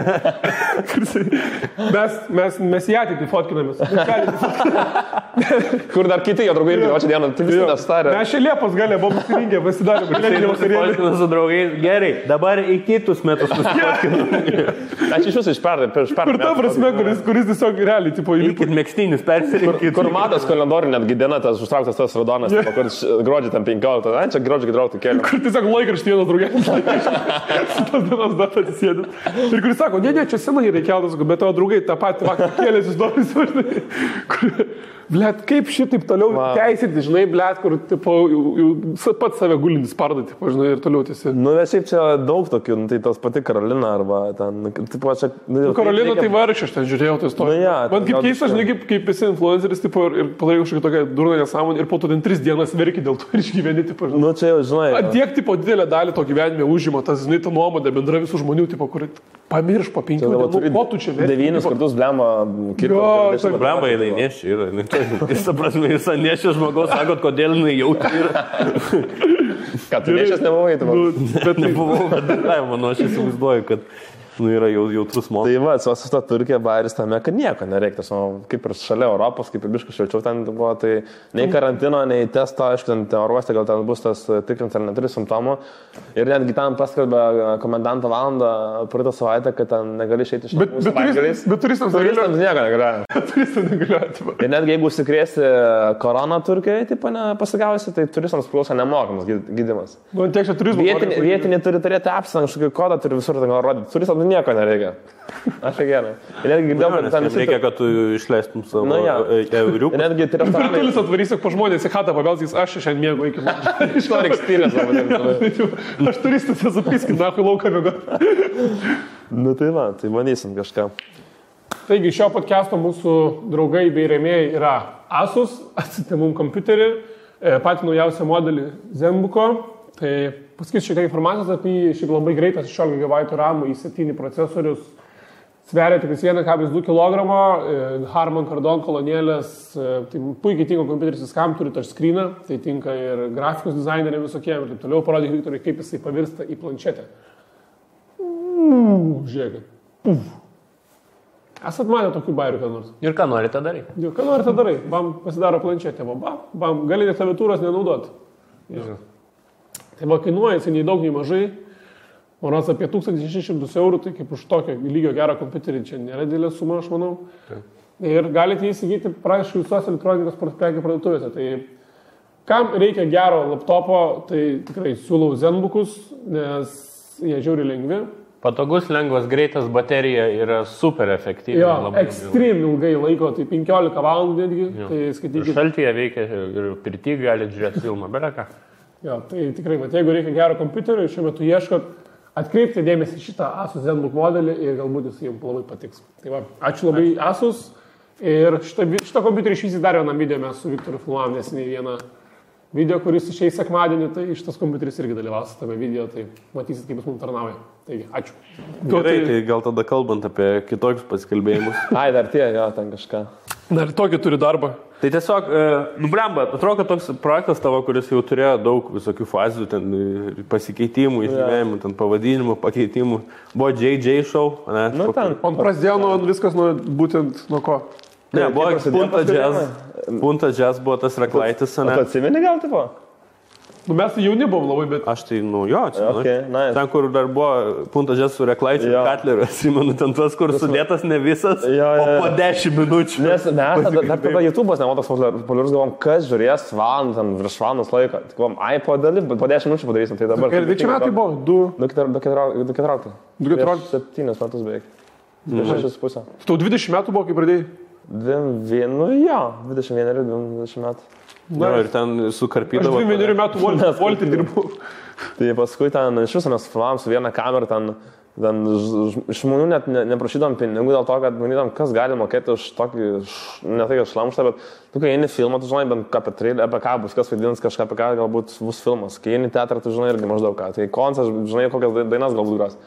S1: Mes į ateitį fotkinamės.
S2: Kur dar kiti jo draugai irgi, o čia dieną, tai visi nestarė.
S1: Mes čia Liepos galė, buvom susirinkę, pasidarėme.
S3: Su draugais, gerai, dabar į kitus metus susifotkinam.
S2: Aš iš jūsų iš pernai.
S1: Kur ta prasme, kuris tiesiog realiai, tipo,
S3: įlipit mėgstinius, persirinkit.
S2: Kur matas kalendorių netgi diena, tas užtrauktas tas raudonas, kur gruodžio ten 15, čia gruodžio 14 kelių.
S1: Kur tiesiog laikraštį vienas draugės. Tas dienas datą atsisėdė. Ir kuris sako, ne, čia senai reikiautas, bet tavo draugai tą patį vakar kėlėsi įdomus. Blet, kaip šitaip toliau teisinti, žinai, blet, kur, tipo, jau pats save gulintis pardą, tipo, žinai, ir toliau tiesi.
S2: Bet šiaip čia daug tokių, tai tos pati Karolina arba ten, tipo, čia...
S1: Karolina tai vargšė, aš ten žiūrėjau tai istoriją. Man kaip keista, žinai, kaip esi influenceris, tipo, ir padarai kažkokią tokią durną nesąmonę ir po to ten 3 dienas verki dėl to ir išgyveni, tipo, žinai.
S2: Čia jau, žinai.
S1: Tiek, tipo, didelę dalį to gyvenime užima, tas, žinai, ta nuomonė bendra visų žmonių, tipo, kur pamirš po 5 dienų, ko tu čia verki.
S2: 9 kartus blemą
S3: kirto. Blemą jinai nešia yra. Jis, prasme, jūs nešia žmogaus, sakot, kodėl jinai jautri yra.
S2: Ką, tu nešęs nebuvai, tu
S3: bet nebuvau, bet manau, aš įsivaizduoju, kad yra jautrus momentas.
S2: Tai va, su ta Turkija bairis tame, kad nieko nereikia. Kaip ir šalia Europos, kaip ir biškas šilčiau ten buvo, tai nei karantino, nei testo, aišku, ten oruoste gal ten bus tas tikrins ar neturi simptomų. Ir netgi tam paskelbė komendanto valandą praeitą savaitę, kad ten negali išeiti iš namų savaitgaliais.
S1: Bet turistams
S2: nieko negalioja.
S1: Turistams negalioja.
S2: Ir netgi jeigu užsikrėsi koroną Turkijoje, tai nepasigavusi, tai turistams priklauso nemokamas gydymas. Vietiniai turi turėti apsą, kažkokį kodą turi visur ten rodyti. Turistams nieko nereikia. Aš gerai. Ir netgi girdėjau, kad ten
S3: reikia, kad tu išleistum savo euriukų.
S2: Ir netgi tai restoranai.
S1: Virtualis atvarysiu po žmonės į chatą, pabelsys, aš šiandien mėgau iki man.
S2: Iš to experience.
S1: Aš turistas esu piskint, nakui lauką mėgau.
S2: Nu tai va, tai manysim kažką.
S1: Taigi šio podcast'o mūsų draugai bei rėmėjai yra Asus, atsitė mum kompiuterį, patį naujausią modelį Zenbooko. Tai pasakysiu šiek tiek informacijos apie jį, šiaip labai greitas 16 GB RAM i7 procesorius, sveria tik 1,2 kg, Harman Kardon kolonėlės, tai puikiai tinka kompiuteris viskam, turi touchscreeną, tai tinka ir grafikos dizaineriai visokie ir taip toliau, parodyk Viktorai, kaip jisai pavirsta į planšetę. Žiūrėkit. Esat matę tokių bairių ką nors?
S3: Ir ką norite darai?
S1: Ką norite darai? Bam, pasidaro planšetę, bam, gali net klaviatūros nenaudoti. Tai va, kainuoja jisai nei daug, nei mažai. Moras apie 1600 eurų, tai kaip už tokio lygio gerą kompiuterį čia nėra didelė suma, aš manau. Tai. Ir galite įsigyti prašau visos elektronikos prekių parduotuvėse. Tai kam reikia gero laptopo, tai tikrai siūlau Zenbookus, nes jie žiauri lengvi.
S3: Patogus, lengvas, greitas, baterija yra super efektyvi.
S1: Jo, ekstrem ilgai laiko, tai 15 valandų netgi. Tai skaitykite.
S3: Šaltyje veikia ir pirty gali žiūrėti filmą, beleką.
S1: Jo, tai tikrai, bet jeigu reikia gero kompiuterio, šiuo metu ieškot, atkreipti dėmesį šitą Asus Zenbook modelį ir galbūt jis jums labai patiks. Tai va, ačiū labai Asus ir šitą kompiuterį išvysi dar vieną video, mes su Viktoru filmuojam neseniai vieną video, kuris išeis sekmadienį, tai šitas kompiuteris irgi dalyvaus tame video, tai matysit, kaip jis mums tarnauja. Taigi, ačiū.
S3: Gerai, tai gal tada kalbant apie kitokius pasikalbėjimus.
S2: Ai, dar tie, jo, ten kažką.
S1: Dar tokį turi darbą.
S3: Tai tiesiog, blemba, atrodo, kad toks projektas tavo, kuris jau turėjo daug visokių fazių, ten pasikeitimų, išgyvenimų, ten pavadinimų, pakeitimų. Buvo JJ show, ne?
S2: Nu, ten.
S1: On prasidėjo nuo viskas būtent nuo ko?
S3: Ne, buvo Punta Jazz buvo tas reklaitis, ne?
S2: Tu atsimeni gal, tipo?
S1: Nu, mes tai jauni buvom labai, bet...
S3: Aš tai, jo, atsimenu.
S2: Okay, nice.
S3: Ten, kur dar buvo puntažės su Reklaičiu ir Katleriu, atsimenu, ten tuos, kur sudėtas ne visas, o po 10 minučių.
S2: Nes mes tada YouTube'as nebuvo toks populiarus, galvom, kas žiūrės valandą, virš valandos laiko. Tai galvom, po 10 minučių padarysim, tai dabar...
S1: Ir čia metai buvo?
S2: 2,14. 7 metus beveik. 6,5.
S1: Tau 20 metų buvo, kai pradėjai?
S2: 21 metų.
S3: Na, ir ten sukarpydavo.
S1: Aš 21 metų voltį dirbu.
S2: Tai paskui ten iš viso mes filmavom su viena kamera, ten iš žmonių net neprašydom pinigų dėl to, kad manytom, kas gali mokėti už tokį, ne tai, kad šlamštą, bet tu, kai eini filmą, tu žinai, bent apie ką bus, kas vaidins kažką, apie ką galbūt bus filmas. Kai eini teatrą, tu žinai irgi maždaug ką. Tai koncas, žinai, kokias dainas galbūt gros.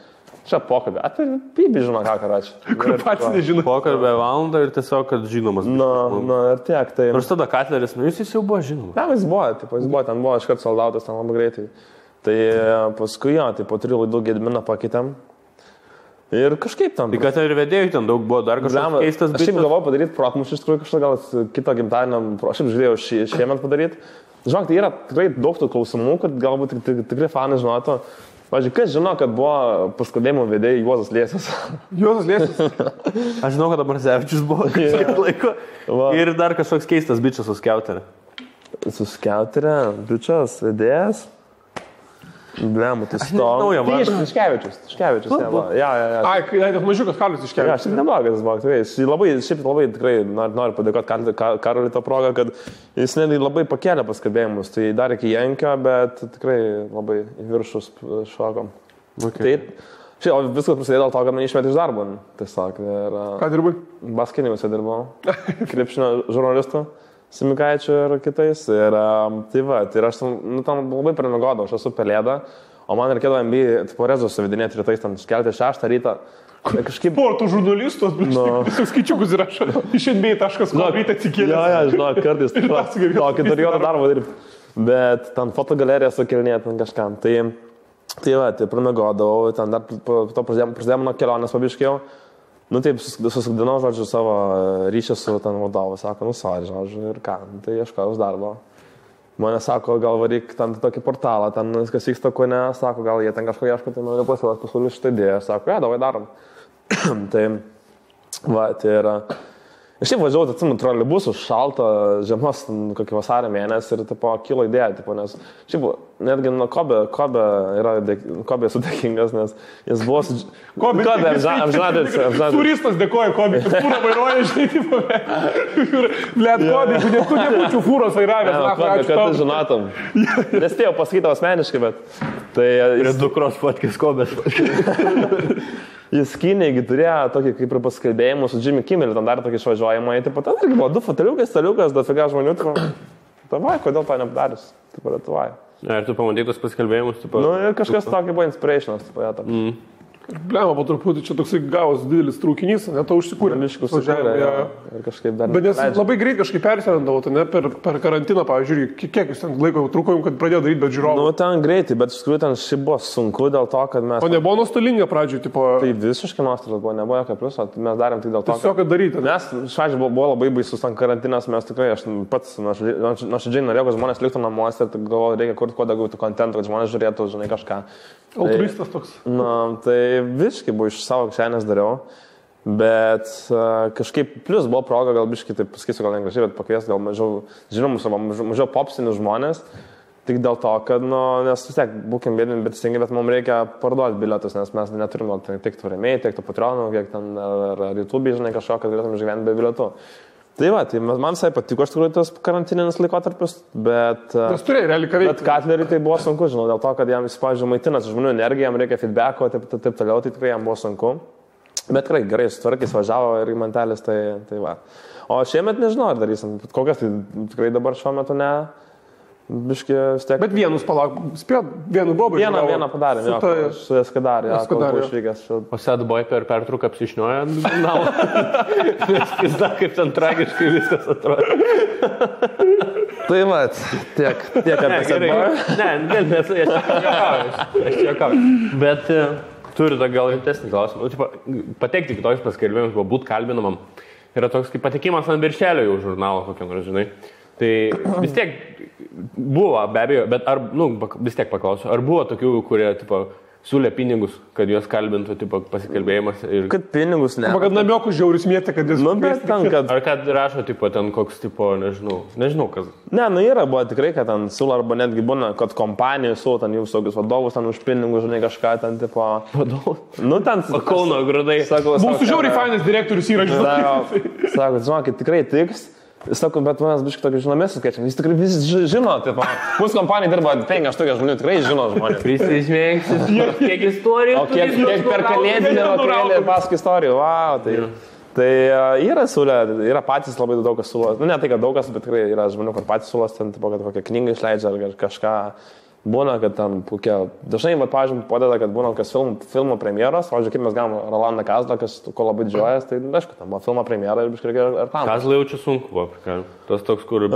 S2: Čia pokalbė. Tai Pibi žino, ką rašė.
S1: Kur pats nežino.
S3: Pokalbė valandą ir tiesiog, kad žinomas.
S2: Na, ir tiek. Tai...
S3: Nors tada Katleris, jis jau buvo žinomas.
S2: Ne, jis buvo, ten buvo iškart soldautas, ten labai greitai. Tai paskui tai po 3 laidų Gedminą pakeitėm. Ir kažkaip tam.
S3: Tai kad ir vedėjai ten daug buvo, dar kažkas keistas.
S2: Aš šiaip galvoju padaryti protmušį, iš tikrųjų kažką gal kito gimtadienio, aš šiaip žiūrėjau šiemet padaryti. Žinok, tai yra tikrai daug tų klausimų, kad galbūt tikrai fanai žinotų. Pavyzdžiui, kas žino, kad buvo paskubėjimo vedėjai Juozas Liesis?
S1: Juozas Liesis?
S3: Aš žinau, kad Abrazevičius buvo kažkiek laiko. Ir dar kažkoks keistas bičias su Skiauterė.
S2: Su Skiauterė, bičias, vedėjas. Blemu, tai sto. Tai Tiškevičius. Ja.
S1: Ai, tai mažiukas Karlis Tiškevičius.
S2: Ja, šiaip neblogas buvo, tikrai. Šiaip labai tikrai noriu padėkoti Karoliui tą progą, kad jis netgi labai pakėlė paskabėjimus. Tai dar iki Jankio, bet tikrai labai į viršus šokom.
S3: Okay.
S2: Tai šiaip viskas prasidėjo dėl to, kad man išmetė iš darbo. Tiesiog.
S1: Ką dirbai?
S2: Baskinimuose dirbau. Krepšinio žurnalistų. Simikaičiu ir kitais. Ir tai va, tai aš tam labai primigodau, aš esu pelėda, o man reikėdavo NBA tipo rezus suvedinėti rytais, ten kelti 6 rytą. Kažkaip...
S1: Sporto žurnalistos, visus skaičiukus įrašo. Iš NBA.com ryte atsikėlė.
S2: Ja, žinau, kartais tokį turėjau darbą dirbti. Bet ten fotogaleriją sukelinėti ten kažkam. Tai va, tai primigodavau, ten dar po to prasidėjo mano kelionės pabiškėjau. Nu taip, susikdinau, žodžiu, savo ryšį su ten vadovu, sako, sorry, žodžiu, ir ką, tai ieškojau darbo. Mane sako, gal varyk ten tokį portalą, ten kas vyksta, ko ne, sako, gal jie ten kažko ieško, tai noriu pasiūlyti šitą idėją, sako, davai darom. Tai, va, tai yra... Aš šiaip važiavau, atsimenu, troleibusų šaltą žiemos, kokį vasario mėnesį ir tipo, kilo idėja, tipo, nes šiaip netgi nuo Kobe esu dėkingas, nes jis buvo su...
S1: Kobe
S2: apžinadės.
S1: Turistas dėkoja Kobe, kad fūrą vairuoja, žinai, tipo, blėt, Kobe, tu nebūčiau fūros vairavęs.
S2: Kad tu žinotum. Nespėjau pasakyti asmeniškai, bet... Tai...
S3: Ir dukros fotkės Kobės.
S2: Jis Kinėgi turėjo tokį kaip ir paskalbėjimą su Jimmy Kimmel, ten dar tokį išvažiuojamą, taip pat ten irgi buvo 2 foteliukas, staliukas, dafiga žmonių, tavai, kodėl to nepadarius, taip pat tavai.
S3: Ir tu pamatytus paskalbėjimus, taip pat.
S2: Nu ir kažkas tokį buvo inspirationas, taip pat.
S1: Blema, po truputį čia toksai gavos didelis traukinys, net to užsikūrė.
S2: Miškus važiavė, ir kažkaip dar...
S1: Bet nes labai greit kažkaip persirendavo, tai ne per karantiną, pavyzdžiui, kiek jūs ten laiko trūkojom, kad pradėjo daryti, bet žiūrovų.
S2: Nu, ten greitai, bet iš tikrųjų ten šiaip buvo sunku dėl to, kad mes...
S1: O nebuvo nuostolinga pradžioj, tipo...
S2: Tai visiškai nuostolis buvo, nebuvo jokio pliuso, mes darėm tik dėl to,
S1: tiesiog, kad daryti.
S2: Mes, šažiai, buvo labai baisus ten karantinas, mes tikrai, aš pats nuoširdžiai norėjau, kad žmonės liktų namuose ir galvojau, reikia kurti kuo daugiau tų kontentų, kad žmonės žiūrėtų, žinai, kažką.
S1: Altruistas toks.
S2: Na, tai visiškai buvo iš savo kišenės dariau, bet kažkaip plus buvo proga, gal biškai, taip pasakysiu, gal negražiai, bet pakvies gal mažiau žinomus, mažiau popsinius žmonės, tik dėl to, kad, nu, nes vis tiek būkim bėdami, bet stengiai, bet mums reikia parduoti bilietus, nes mes neturim tiek tų rėmėjų, tiek tų patronų, kiek ten ar YouTube, žinai, kažko, kad galėtume išgyventi be bilietų. Tai va, tai man visai patiko iš tikrųjų tas karantininis laikotarpis, bet...
S1: Nes turėjai realiai ką veikti.
S2: Bet Katleriui tai buvo sunku, žinau, dėl to, kad jam, pavyzdžiui, maitinasi žmonių energiją, jam reikia feedbacko, taip toliau, tai tikrai jam buvo sunku. Bet tikrai gerai, sutvarkys, važiavo ir į mantelis, tai va. O šiemet nežinau, ar darysim, kokias tai tikrai dabar šiuo metu ne... Biški vis tiek.
S1: Bet vienus palauk, spėjo, vienu bobą.
S2: Vieną padarėm, jo, su Eskadarė, kol buvo išvykęs.
S3: O Sedboy per pertrauką apsišniojo ant žurnalo. Nes pizda, kaip ten tragiškai viskas atrodo.
S2: Tai mat, tiek apie Sedboy.
S3: Ne, aš čia juokauju. Bet turiu tą gal rimtesnį klausimą. Patekti kitokius paskelbimus, būt kalbinamam. Yra toks kaip patekimas ant viršelio jau žurnalo, kokiam, žinai. Tai vis tiek buvo, be abejo, bet vis tiek paklausiu, ar buvo tokių, kurie, tipo, siūlė pinigus, kad juos kalbintų, tipo, pasikalbėjimas ir...
S2: Kad pinigus ne.
S1: Arba kad namiokų žiaurius mėtė, kad jis...
S2: Bet ten, kad...
S3: Ar kad rašo, tipo, ten koks, tipo, nežinau kas.
S2: Ne, yra, buvo tikrai, kad ten siūlo, arba netgi būna, kad kompanijų siūlo, ten jų visokius vadovus, ten už pinigus, žinai, kažką ten, tipo...
S3: Vadovus?
S2: Ten...
S3: O Kauno grūdai.
S1: Mūsų žiauriai fainas direktorius yra, žinai.
S2: Sako, žinokit, tikrai tiks. Sakau, bet manęs biškai tokį žinomės skaičiam. Jis tikrai visi žino, tipo, mūsų kompanija dirba 5-8 žmonių, tikrai žino žmonės.
S3: Prisižmėgsis, kiek istorijų.
S2: O kiek per kalėdinį vakarėlį paskui istorijų, wow, tai... Tai yra siūlė, yra patys labai daug kas siūlo. Ne tai, kad daug kas, bet tikrai yra žmonių, kur patys siūlos, ten, tipo, kad kokią knygą išleidžia ar kažką. Būna, kad ten kokie... Dažnai, pavyzdžiui, padeda, kad būna kas filmo premjeros. Pavyzdžiui, kaip mes gavom Rolandą Kazlą, ko labai didžiuojas, tai aišku, tam buvo filmo premjera ir biškai reikia ir tam.
S3: Kazlą jaučiu sunku buvo, tas toks, kur...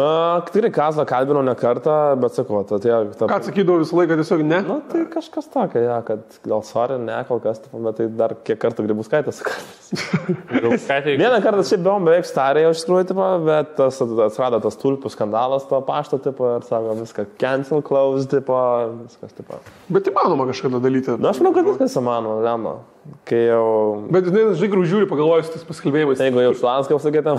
S2: Tikrai Kazlą kalbinau ne kartą, bet sakau,
S1: Ką atsakydavo visą laiką, tiesiog ne?
S2: Na, tai kažkas tokio, ja, kad gal sorry, ne, kol kas, bet tai dar kiek kartų Grybauskaitė sakė. Vieną kartą šiaip buvom beveik starė, iš tikrųjų, tipo, bet atsirado tas tulpių skandalas to pašto, tipo, ir sako, viską cancel, close, tipo, viskas, tipo.
S1: Bet įmanoma kažką daryti.
S2: Na, aš manau, kad viskas įmanoma, lemma. Kai jau...
S1: Bet, žinai, grū žiūri, pagalvojus tas paskalbėjimais.
S2: Jeigu jau šlanską sakėtum.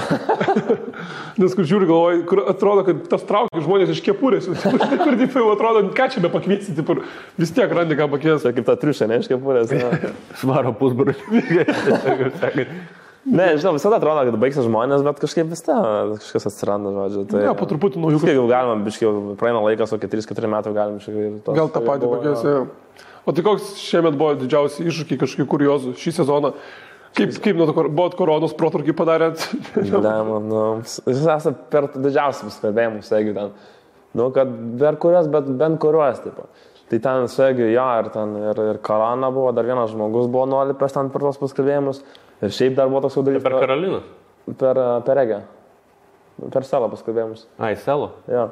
S1: Nes kur žiūri, galvoju, kur atrodo, kad tas traukia žmonės iš kepurės. Kur taip jau atrodo, ką čia be pakviesti, taip, vis tiek randi ką pakviesti.
S2: Tai kaip ta triušė, ne, iš kepurės.
S3: Svaro pusbrū.
S2: Ne, žinau, visada atrodo, kad baigsis žmonės, bet kažkaip vis kažkas atsiranda, žodžiu. Tai,
S1: ne, po truputį naujų.
S2: Kaip jau galima, biškai, praeina laikas, o 3-4 metų galim biškai.
S1: Gal tą patį pakviesti. O tai koks šiemet buvo didžiausi iššūkiai, kažkokių kuriozų šį sezoną? Kaip buvo koronos protrūkį padarėt?
S2: Jūs esate per didžiausius kalbėjimus, jeigu ten, kad per kurios, bet bent kurios, tipo. Tai ten, jeigu, ir korona buvo, dar vienas žmogus buvo nolipęs ten per tos paskalbėjimus. Ir šiaip dar buvo toks jau dalykas.
S3: Per Karoliną?
S2: Per Egę. Per Selo paskalbėjimus.
S3: Ai, Selo?
S2: Jo.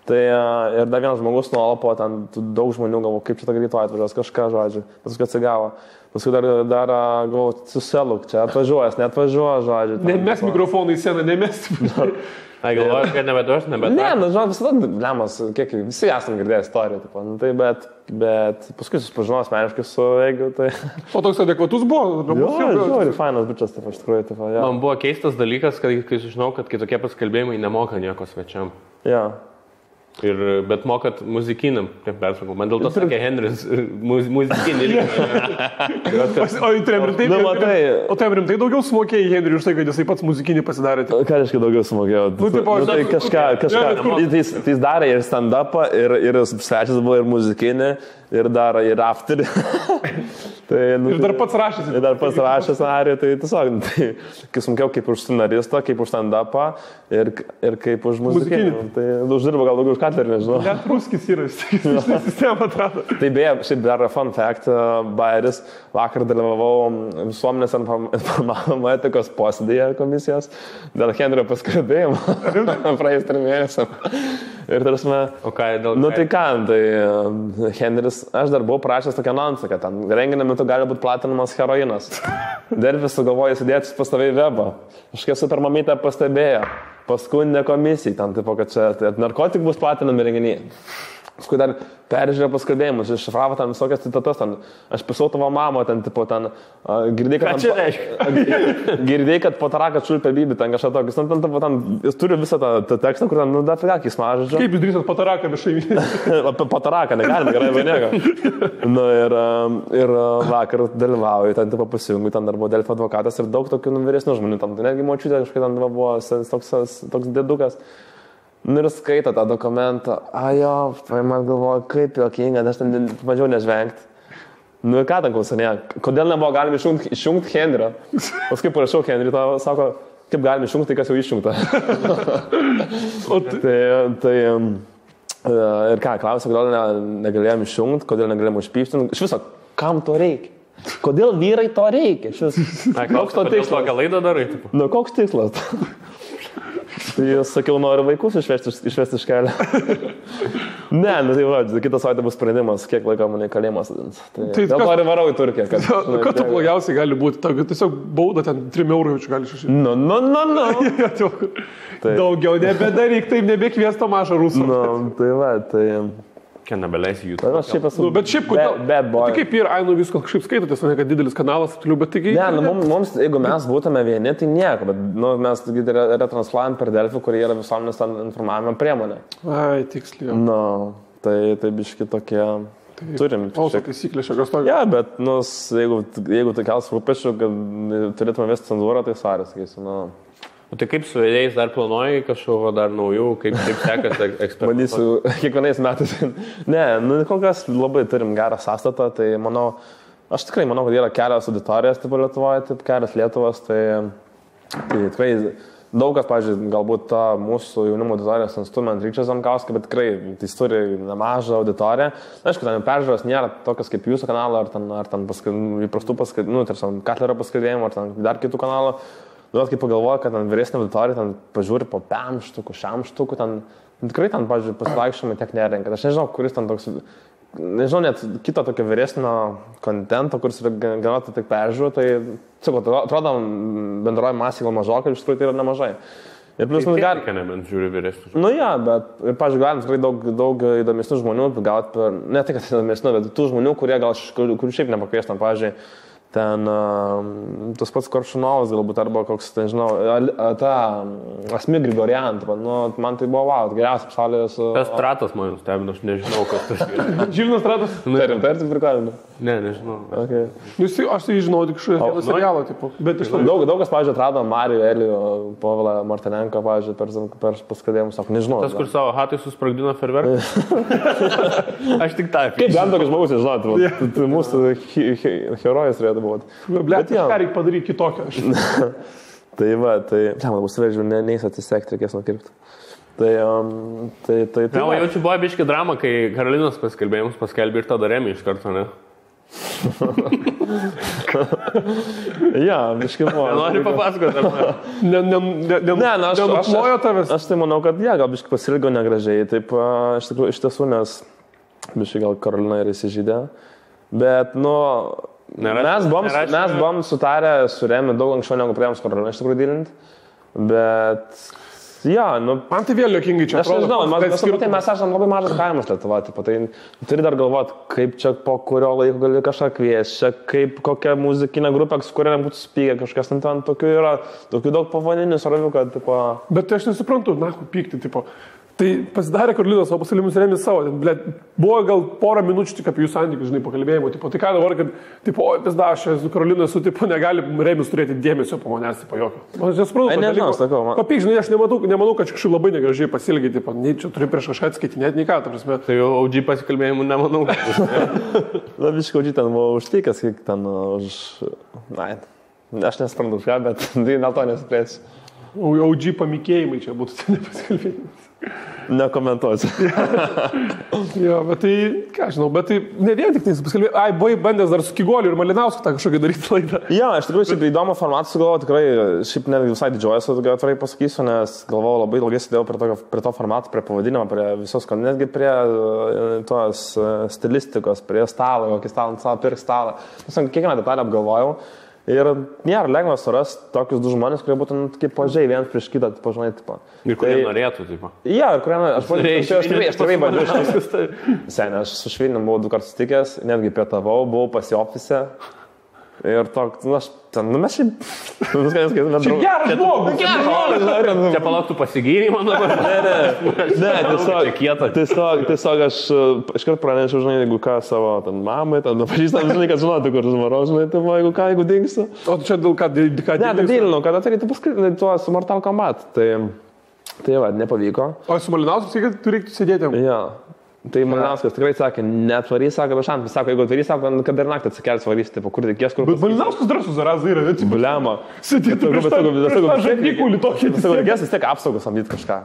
S2: Tai ir dar vienas žmogus nuolapo, ten daug žmonių galvo, kaip čia tą greitoje atvažiuos, kažką, žodžiu. Paskui atsigavo. Paskui dar galvo, suseluk, čia atvažiuojas, neatvažiuoja, žodžiu.
S1: Nemes mikrofoną į sceną, nemes.
S3: Ai, galvoju, kad nebeduos.
S2: Ne, žinot, visada lemas, kiek visi esam girdėję istoriją, tipo, tai bet paskui susipažinau asmeniškai su Egiu, tai...
S1: O toks adekvatus buvo?
S2: Jo, fainas bičias, taip, iš tikrųjų, taip, jo.
S3: Man buvo keistas dalykas, kai sužinau, kad kitokie paskalbėjimai nemoka nieko svečiam.
S2: Jo.
S3: Bet mokat muzikiniam, kaip persakau. Man dėl to sakė Henris, muzikinį lygį.
S1: O tai rimtai daugiau sumokėjai Henriui už tai, kad jisai pats muzikinį pasidarė?
S2: Ką reiškia daugiau sumokėjau? Tai kažką. Tai jis darė ir stand-upą, ir svečias buvo ir muzikinį, ir dar ir afterį.
S1: Ir dar pats rašęs.
S2: Ir dar pats rašęs scenarijų, tai tiesiog, kai sumokėjau kaip už scenaristą, kaip už stand-upą ir kaip už muzikinį. Tai uždirba gal daugiau už Katlerį, nežinau.
S1: Net ruskis yra, sistema atrado.
S2: Tai beje, šiaip dar fun fact, Bairis, vakar dalyvavau visuomenės informavimo etikos posėdėje komisijos dėl Henrio paskalbėjimo praėjus 3 mėnesiam. Ir tarsi,
S3: o ką, dėl
S2: nu tai ką, tai Henris, aš dar buvau prašęs tokią anonsą, kad ten renginio metu gali būti platinamas heroinas. Delfis sugalvoja įsidėti pastoviai webą. Kažkaip super mamytė pastebėjo. Paskundė komisijai, ten tipo, kad čia narkotik bus platinami renginiai. Paskui dar peržiūrėjo paskalbėjimus, iššifravo ten visokias citatas, ten, aš pisau tavo mamą, ten, tipo, ten, girdėjai, kad pataraką čiulpė Bibi, ten kažką tokis, ten, jis turi visą tą tekstą, kur ten, nu, dar figa, kis mažodžio.
S1: Kaip jūs drįsat pataraką viešai?
S2: Apie pataraką negalime, gerai, vai nieko. Nu, ir vakar dalyvauju, ten, tipo, pasijungu, ten dar buvo Delfio advokatas ir daug tokių vyresnių žmonių, ten, netgi močiutė kažkaip ten buvo toks dėdukas. Nu ir skaito tą dokumentą, ajo, man galvoju, kaip jokinga, aš ten bandžiau nežvengti. Nu ir ką ten klausinėjo, kodėl nebuvo galima išjungti Henrio? Paskui parašiau Henriui, to sako, kaip galima išjungti, tai kas jau išjungta. Ir ką, klausė, kodėl negalėjom išjungti, kodėl negalėjom užpyšti. Iš viso, kam to reikia? Kodėl vyrai to reikia?
S3: Koks to tikslas? Kokią laidą darai?
S2: Nu, koks tikslas? Tai sakiau, noriu vaikus išvesti iš kelio. Ne, nu tai va, kitą savaitę bus sprendimas, kiek laiko mane kalėjimas atins. Tai dėl to ir varau į Turkiją.
S1: Ką tu blogiausiai gali būti? Tiesiog bauda ten 3 eurų jaučiu gali šešti. Daugiau nebedaryk, taip nebekvies tą mažą rusų.
S2: Tai va, tai...
S3: Ką nebeleisi jų.
S2: Aš šiaip esu...
S1: Bet šiaip, kodėl?
S2: Bad boy.
S1: Tai kaip ir, viskas kažkaip skaitotės, ne kad didelis kanalas, bet taigi...
S2: Ne, mums, jeigu mes būtume vieni, tai nieko, bet mes retransluojam per Delfį, kurie yra visuomenės informavimo priemonė.
S1: Ai, tiksliai.
S2: Tai biški tokie... Turim.
S1: Auso taisyklė šios tokios.
S2: Ja, bet, jeigu tai kels rūpešių, kad turėtume vesti cenzūrą, tai svarės, sakysiu,
S3: O tai kaip su vėjais dar planuoji kažkokio dar naujų, kaip sekasi eksperimentuoti?
S2: Bandysiu kiekvienais metais. Ne, kol kas labai turim gerą sąstatą, tai aš tikrai manau, kad yra kelios auditorijos tipo Lietuvoje, taip kelios Lietuvos, tai tikrai daug kas, pavyzdžiui, galbūt ta mūsų jaunimo auditorijos instrument Ryčias Zankauskas, bet tikrai jis turi nemažą auditoriją. Aišku, ten peržiūros nėra tokios kaip jūsų kanalo, ar ten įprastų tarsi Katlerio paskirėjimų, ar ten dar kitų kanalų. Kai pagalvoju, kad ten vyresnė auditorija ten pažiūri po 5 štukų, 6 štukų, ten tikrai ten, pavyzdžiui, pasivaikščiojimai tiek nerenka. Aš nežinau, kuris ten toks, nežinau, net kito tokio vyresnio kontento, kuris yra gana tik peržiūrų, tai, atrodo, bendroji masė gal mažokai, iš tikrųjų tai yra nemažai. Ir plus mums gali...
S3: Nebent žiūri vyresnius.
S2: Bet, pavyzdžiui, galim tikrai daug įdomesnių žmonių, ne tai, kad įdomesnių, bet tų žmonių, kurių šiaip nepakviestam, pavyzdžiui, ten tas pats Koršunovas galbūt, arba koks, nežinau, ta Asmi Grigorian, man tai buvo geriausias pasaulyje su...
S3: Tas Stratas man nustebino, aš nežinau, kas tas yra.
S1: Žilvinas Stratas?
S2: Tai tik prikalinu.
S3: Ne, nežinau.
S2: Okay.
S1: Aš tai žinau tik šio serialo, tipo.
S2: Daug kas, pavyzdžiui, atrado Marijų Elijų, Povilą Martinenką, pavyzdžiui, per paskadėjimus, sako, nežinau.
S3: Tas, kur savo hatai susprogdino ferverką? Aš tik tą.
S2: Kaip bent tokias žmogus, nežinau, tai mūsų herojus turėtų būti.
S1: Bet ką reikia padaryti kitokio?
S2: Tai va, man bus vežiu, neįs atsisekti, reikės nukirpti. Tai
S3: jaučiu, buvo biški drama, kai Karolinos paskelbėjimus paskelbė ir tada Remi iš karto, ne?
S2: Ja, biški buvo.
S3: Nenori papasakoti, ar
S1: nenuplojo tavęs?
S2: Aš tai manau, kad gal biški pasilgo negražiai, taip iš tiesų, nes biški gal Karolina ir įsižydė, bet, mes buvom sutarę su Remi daug anksčiau negu pradėjom su Karolina iš tikrųjų dylinti, bet...
S1: Man tai vėl juokingai čia atrodo.
S2: Aš nežinau, mes esame labai mažas kaimas Lietuva, tai turi dar galvoti, kaip čia po kurio laiko gali kažką kviesti, čia kaip kokia muzikinė grupė, su kuria būtų spygę kažkas, ten tokių yra, tokių daug pavadinių, svarbių, kad, tipo...
S1: Bet aš nesuprantu, pykti, tipo... Tai pasidarė Karolinas, o pasilimus Remis savo, buvo gal porą minučių tik apie jų santykius, pakalbėjimo, tai ką dabar, kad, aš su Karolina esu, negali Remis turėti dėmesio po manęs, jokio. Aš nesuprantu, papyk, žinai, aš nemanau, kad kažkaip labai negražiai pasilgiai, nei čia turi prieš kažką atskaitinėti, nei ką, ta prasme.
S3: Tai jau OG pasikalbėjimų nemanau.
S2: Labiškai OG ten buvo užtikęs, kiek ten už... Aš nesuprantu už ką, bet dėl to nesiplėsiu.
S1: OG pamikėjimai čia būtų, tai nepasikalbėjimas.
S2: Nekomentuosiu.
S1: Jo, bet tai, ką žinau, bet tai ne vien tik tai pasikalbėjai. Buvai bandęs dar su Kigoliu ir Malinausku tą kažkokį daryti laidą.
S2: Jo, iš tikrųjų, šiaip įdomų formatą sugalvojau, tikrai, šiaip ne visai didžiuojuosi, atvirai pasakysiu, nes galvojau labai ilgai sėdėjau prie to formato, prie pavadinimo, prie visos, netgi prie tos stilistikos, prie stalo, kokį stalą pirk stalą. Kiekvieną detalę apgalvojau. Ir nėra lengva surasti tokius du žmonės, kurie būtų kaip pažiai vienas prieš kitą, pažinai, tipo.
S3: Ir kurie norėtų, tipo.
S2: Ja, ir kurie norėtų. Aš tikrai bandžiau. Seniai, aš su Švilnium buvau 2 kartus sutikęs, netgi pietavau, buvau pas į ofise. Ir toks, mes šiaip...
S1: Čia geras žmogus!
S3: Čia palauktų pasigyrimo dabar?
S2: Ne, tiesiog aš iškart pranešiau, žinai, jeigu ką savo mamai, pažįstam, žinai, kad žinotų, kur žmaro, žinai, jeigu dingsiu.
S1: O tu čia dėl ką
S2: dingsiu? Ne, tai dylinau, kad atsakyti paskritinai tuo su Mortal Kombat. Tai va, nepavyko.
S1: O su Malinausku sakai, kad tu reiktų sėdėti?
S2: Jo. Tai Malinauskas tikrai sakė, netvarys, sako, bešantas, sako, jeigu atvarys, sako, kad ir naktį atsikels varys, tipo, kur reikės, kur...
S1: Bet Malinauskas drąsus zarazai yra, ne?
S2: Buliamo.
S1: Sėdėtų prieš tą žandikūlį tokį.
S2: Sako, reikės vis tiek apsaugos samdyti kažką.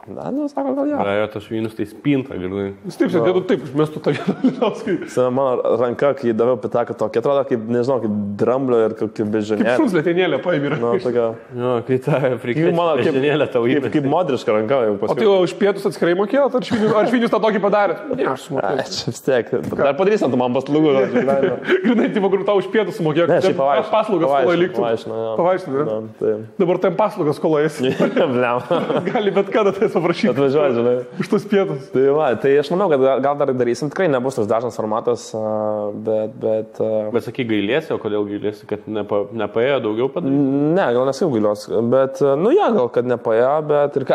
S2: Na, nu, sako, gal jo.
S3: Jo, tas švynus tai spinta, girdai.
S1: Jis taip, sakėtų, taip, išmestų tą Malinauską.
S2: Mano ranka, kai daviau pitaką tokį, atrodo kaip, nežinau, kaip dramblio ir kaip bežionėlė.
S1: Kaip šuns lėtenėlė paėmė.
S2: Nu, tokia.
S3: Jo, kai ta bežionėlė tau įmė.
S2: Kaip modriška ranka jau paskui.
S1: O tai jau už pietus atskirai mokėjot, ar švinius tą tokį padarė? Ne, aš sumokėjau.
S2: Čia vis tiek. Dar padarysim, tu man paslaugų.
S1: Grinai, tai vakarų tau už pietus sumokėjau.
S2: Ne, šiaip pavaišinu.
S1: Paslaugas skoloje liktų. Pavaišinu, ne? Dabar tam paslaugas skoloje esi. Gali bet kada tai paprašyti.
S2: Atvažiuoju, žinai.
S1: Už tus pietus.
S2: Tai aš manau, kad gal dar darysim. Tikrai nebus tas dažnas formatas, bet...
S3: Bet sakai, gailėsi, o kodėl gailėsi, kad nepaėjo daugiau padaryti?
S2: Ne, gal nesakiau gailios, bet, nu ja, gal kad nepaėjo, bet ir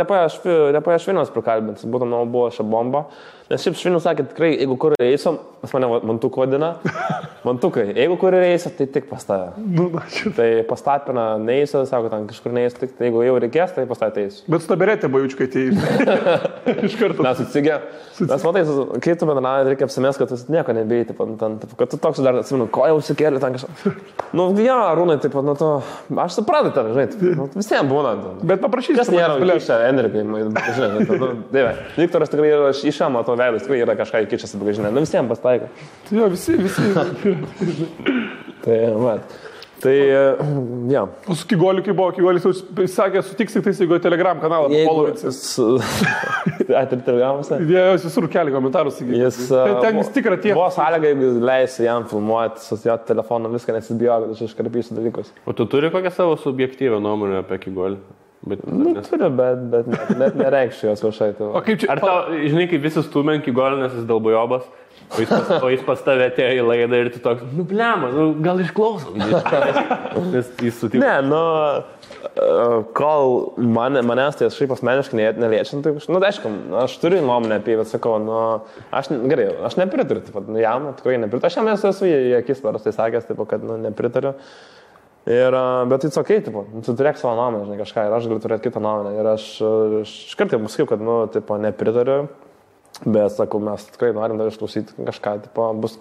S2: nepaėjo Šviniaus prikalbinti, būtų, manau, buvo šią bombą. Nes šiaip Švinius sakė, tikrai, jeigu kur eisim, pas mane mantuku vadina, mantukai, jeigu kur eisim, tai tik pas tave. Tai pastapina neįsiu, sako, ten kažkur neįsiu, tik jeigu jau reikės, tai pas tave eisiu.
S1: Bet staberėtė bajučiukai tai iš karto.
S2: Mes atsigė. Mes matai, kai tu bendravai, reikia apsimės, kad tu nieko nebeiti, kad tu toks dar atsimenu, ko jau užsikėlė ten kažką. Nu, ja, Rūnai, taip pat, nu, to, aš suprantu ten, žinai, nu, visiems būna.
S1: Bet paprašysiu.
S2: Kas nėra įkišę Enrikai, žinai, nu, dieve. Viktoras tikrai yra iš šią matau veidas, tikrai yra kažką įkišęs, bet žinai, nu, visiems pastaiko.
S1: Jo, visi.
S2: Tai, mat. Tai, ja.
S1: O su Kigoliu, kai buvo, Kigolis jau sakė, sutiks tik tais, jeigu Telegram kanalą polovinsi.
S2: Tai Telegramuose?
S1: Jie visur kelia komentarus. Ten vis tikra tie.
S2: Buvo sąlyga, jeigu leisi jam filmuoti su jo telefonu, viską nesibijo, kad aš iškarpysiu dalykus.
S3: O tu turi kokią savo subjektyvę nuomonę apie Kigolį?
S2: Nu, turiu, bet net nereikščiau jos viešai.
S1: O kaip čia?
S3: Ar tau, žinai, kaip visi stumė Kigolį, nes jis dalbojobas? O jis pas tave atėjo į laidą ir tu toks, nu blema, nu, gal išklausom. Nes jis sutiko.
S2: Ne, nu, kol manęs tai šiaip asmeniškai neliečiant, tai, nu, aišku, aš turiu nuomonę apie jį, bet sakau, nu, gerai, aš nepritariu, taip pat, nu, jam, tikrai nepritariu. Aš jam esu į akis paprastai sakęs, taip, kad, nu, nepritariu. Bet tai okay, tipo, tu turėk savo nuomonę, žinai, kažką, ir aš galiu turėti kitą nuomonę. Ir aš kartai pasakiau, kad, nu, tipo, nepritariu. Bet, sakau, mes tikrai norim dar išklausyti kažką, tipo, bus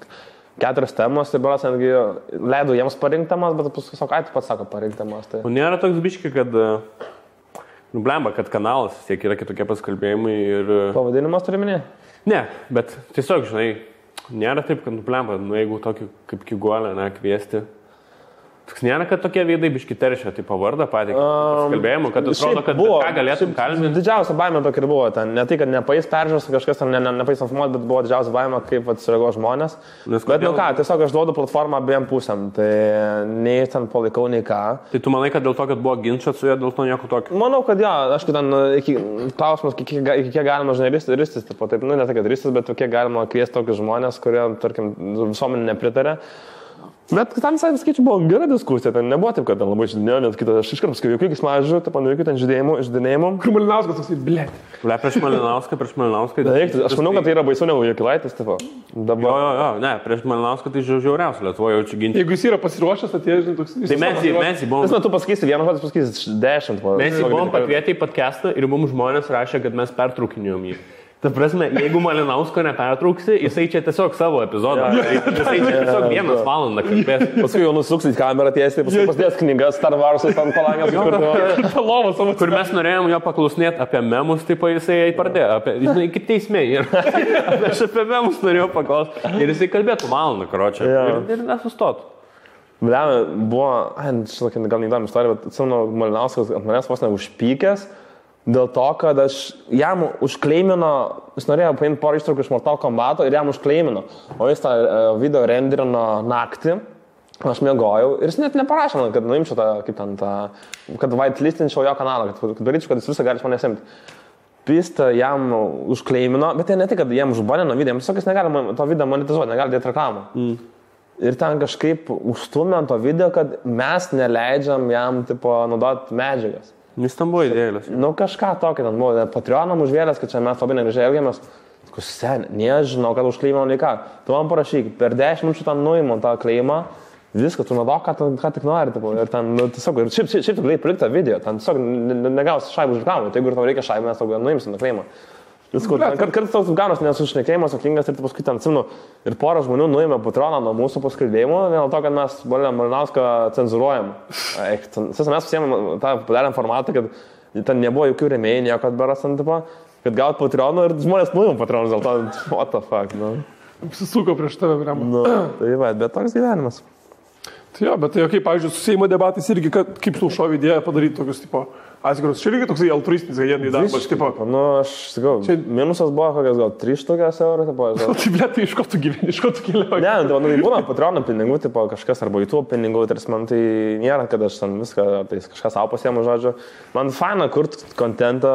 S2: 4 temos, tai beras netgi leidau jiems parinkti temas, bet paskui sako, tu pats sako parinkti temas. Tai...
S3: O nėra toks biški, kad, nu, blemba, kad kanalas tiek yra kitokie paskalbėjimai ir...
S2: Pavadinimas turi minė?
S3: Ne, bet tiesiog, žinai, nėra taip, kad, nu, blemba, nu, jeigu tokį kaip Kigolį, ne, kviesti. Toks nėra, kad tokie veidai biški teršia, tai pavardą patį paskalbėjimų, kad atrodo, kad buvo, ką galėtum kalbėti.
S2: Didžiausia baimė tokia ir buvo ten. Ne tai, kad nepais peržiūros, kažkas ten nepais informuoti, bet buvo didžiausia baimė, kaip atsirego žmonės. Bet nu ką, tiesiog aš duodu platformą abiem pusėm. Tai nei ten palaikau, nei ką.
S3: Tai tu manai, kad dėl to, kad buvo ginčas su juo, dėl to nieko tokio?
S2: Manau, kad jo, aš ten klausimas, iki kiek galima, žinai, ristis, taip, nu ne tai, kad ristis, bet kiek galima kviesti tokius žmonės, kurie, tarkim, visuomenė nepritarė. Bet tam visai skaičiu buvo gera diskusija, ten nebuvo taip, kad ten labai žydinėjo, net kitas, aš iškart paskui jokių smažių, taip man jokių ten žydinėjimų.
S1: Kur Malinauskas toksai, blėt.
S3: Prieš Malinauską.
S2: Aš manau, kad tai yra baisiau negu Jakilaitis, tipo.
S3: Dabar... Jo, ne, prieš Malinauską tai žiauriausia, Lietuvoje jaučiu ginti.
S1: Jeigu jis yra pasiruošęs, atėjo, žinai, toks...
S3: Tai mes jį buvom...
S2: Tu pasakysi vieną žodį, pasakysi 10.
S3: Mes jį buvom pakvietę į podcastą ir mums žmonės rašė, kad mes pertraukinėjom jį. Ta prasme, jeigu Malinausko nepertrauksi, jisai čia tiesiog savo epizodą. Jisai čia tiesiog 1 valandą kalbės.
S2: Paskui jau nusuksit kamerą tiesiai, paskui pasidės knygas Star Wars'ai ant palangės.
S3: Kur mes norėjom jo paklausinėti apie memus, taip jisai pradėjo. Žinai, kaip teismė. Aš apie memus norėjau paklausti. Ir jisai kalbėtų valandą, karočią. Ir nesustotų.
S2: Blema, buvo, gal neįdomi istorija, bet atsimenu, Malinauskas ant manęs vos neužpykęs. Dėl to, kad aš jam užkleimino, jis norėjo paimti porą ištraukų iš Mortal Kombato ir jam užkleimino, o jis tą video renderino naktį, aš miegojau ir jis net neparašė man, kad nuimčiau tą, kaip ten tą, kad whitelistinčiau jo kanalą, kad daryčiau, kad jis visą gali iš manęs imti. Pistą jam užkleimino, bet tai ne tik, kad jam užbanino video, jam jis negali to video monetizuoti, negali dėti reklamą. Ir ten kažkaip užstumė ant to video, kad mes neleidžiam jam, tipo, naudoti medžiagas.
S3: Jis tam buvo idėjas.
S2: Nu kažką tokio, ten buvo Patreonam užvėlęs, kad čia mes labai negražiai elgiamės. Nežinau, kad užkleimą nei ką. Tu man parašyk, per 10 minučių tam nuimam tą kleimą, viską, tu naudok, ką tik nori. Tipo, ir ten, nu, tiesiog, ir šiaip tu galėjai palikti video, ten tiesiog negausi šaibų už reklamą. Tai jeigu tau reikia šaibų, mes tau nuimsim tą kleimą. Kartais toks ganas nesušnekėjimas, atkingas ir paskui ten atsimenu ir porą žmonių nuėmė Patreoną nuo mūsų paskalbėjimų, dėl to, kad mes Malinauską cenzuruojam. Mes pasiėmėm tą padarėm formatą, kad ten nebuvo jokių rėmėjų, nieko atberas ant tipo, kad gaut Patreonų ir žmonės nuėjom Patreonus, dėl to, what the fuck, nu.
S1: Apsisuko prieš tave, Rema.
S2: Nu, tai va, bet toks gyvenimas.
S1: Tai jo, bet tai kaip, pavyzdžiui, su Seimo debatais irgi, kaip tu šovė idėją padaryti tokius, tipo, atskirus. Čia irgi toksai altruistinis, kad jie neįdarbas, tipo.
S2: Nu, aš sakau, čia minusas buvo kokias gal 3 eurų, tipo.
S1: Tai blė, tai iš ko tu gyveni, iš ko tu keliauji?
S2: Ne, tai būna Patreono pinigų, tipo kažkas, arba YouTube pinigų, tarsi man tai nėra, kad aš ten viską, tai kažkas savo pasiemu, žodžiu. Man faina kurti kontentą,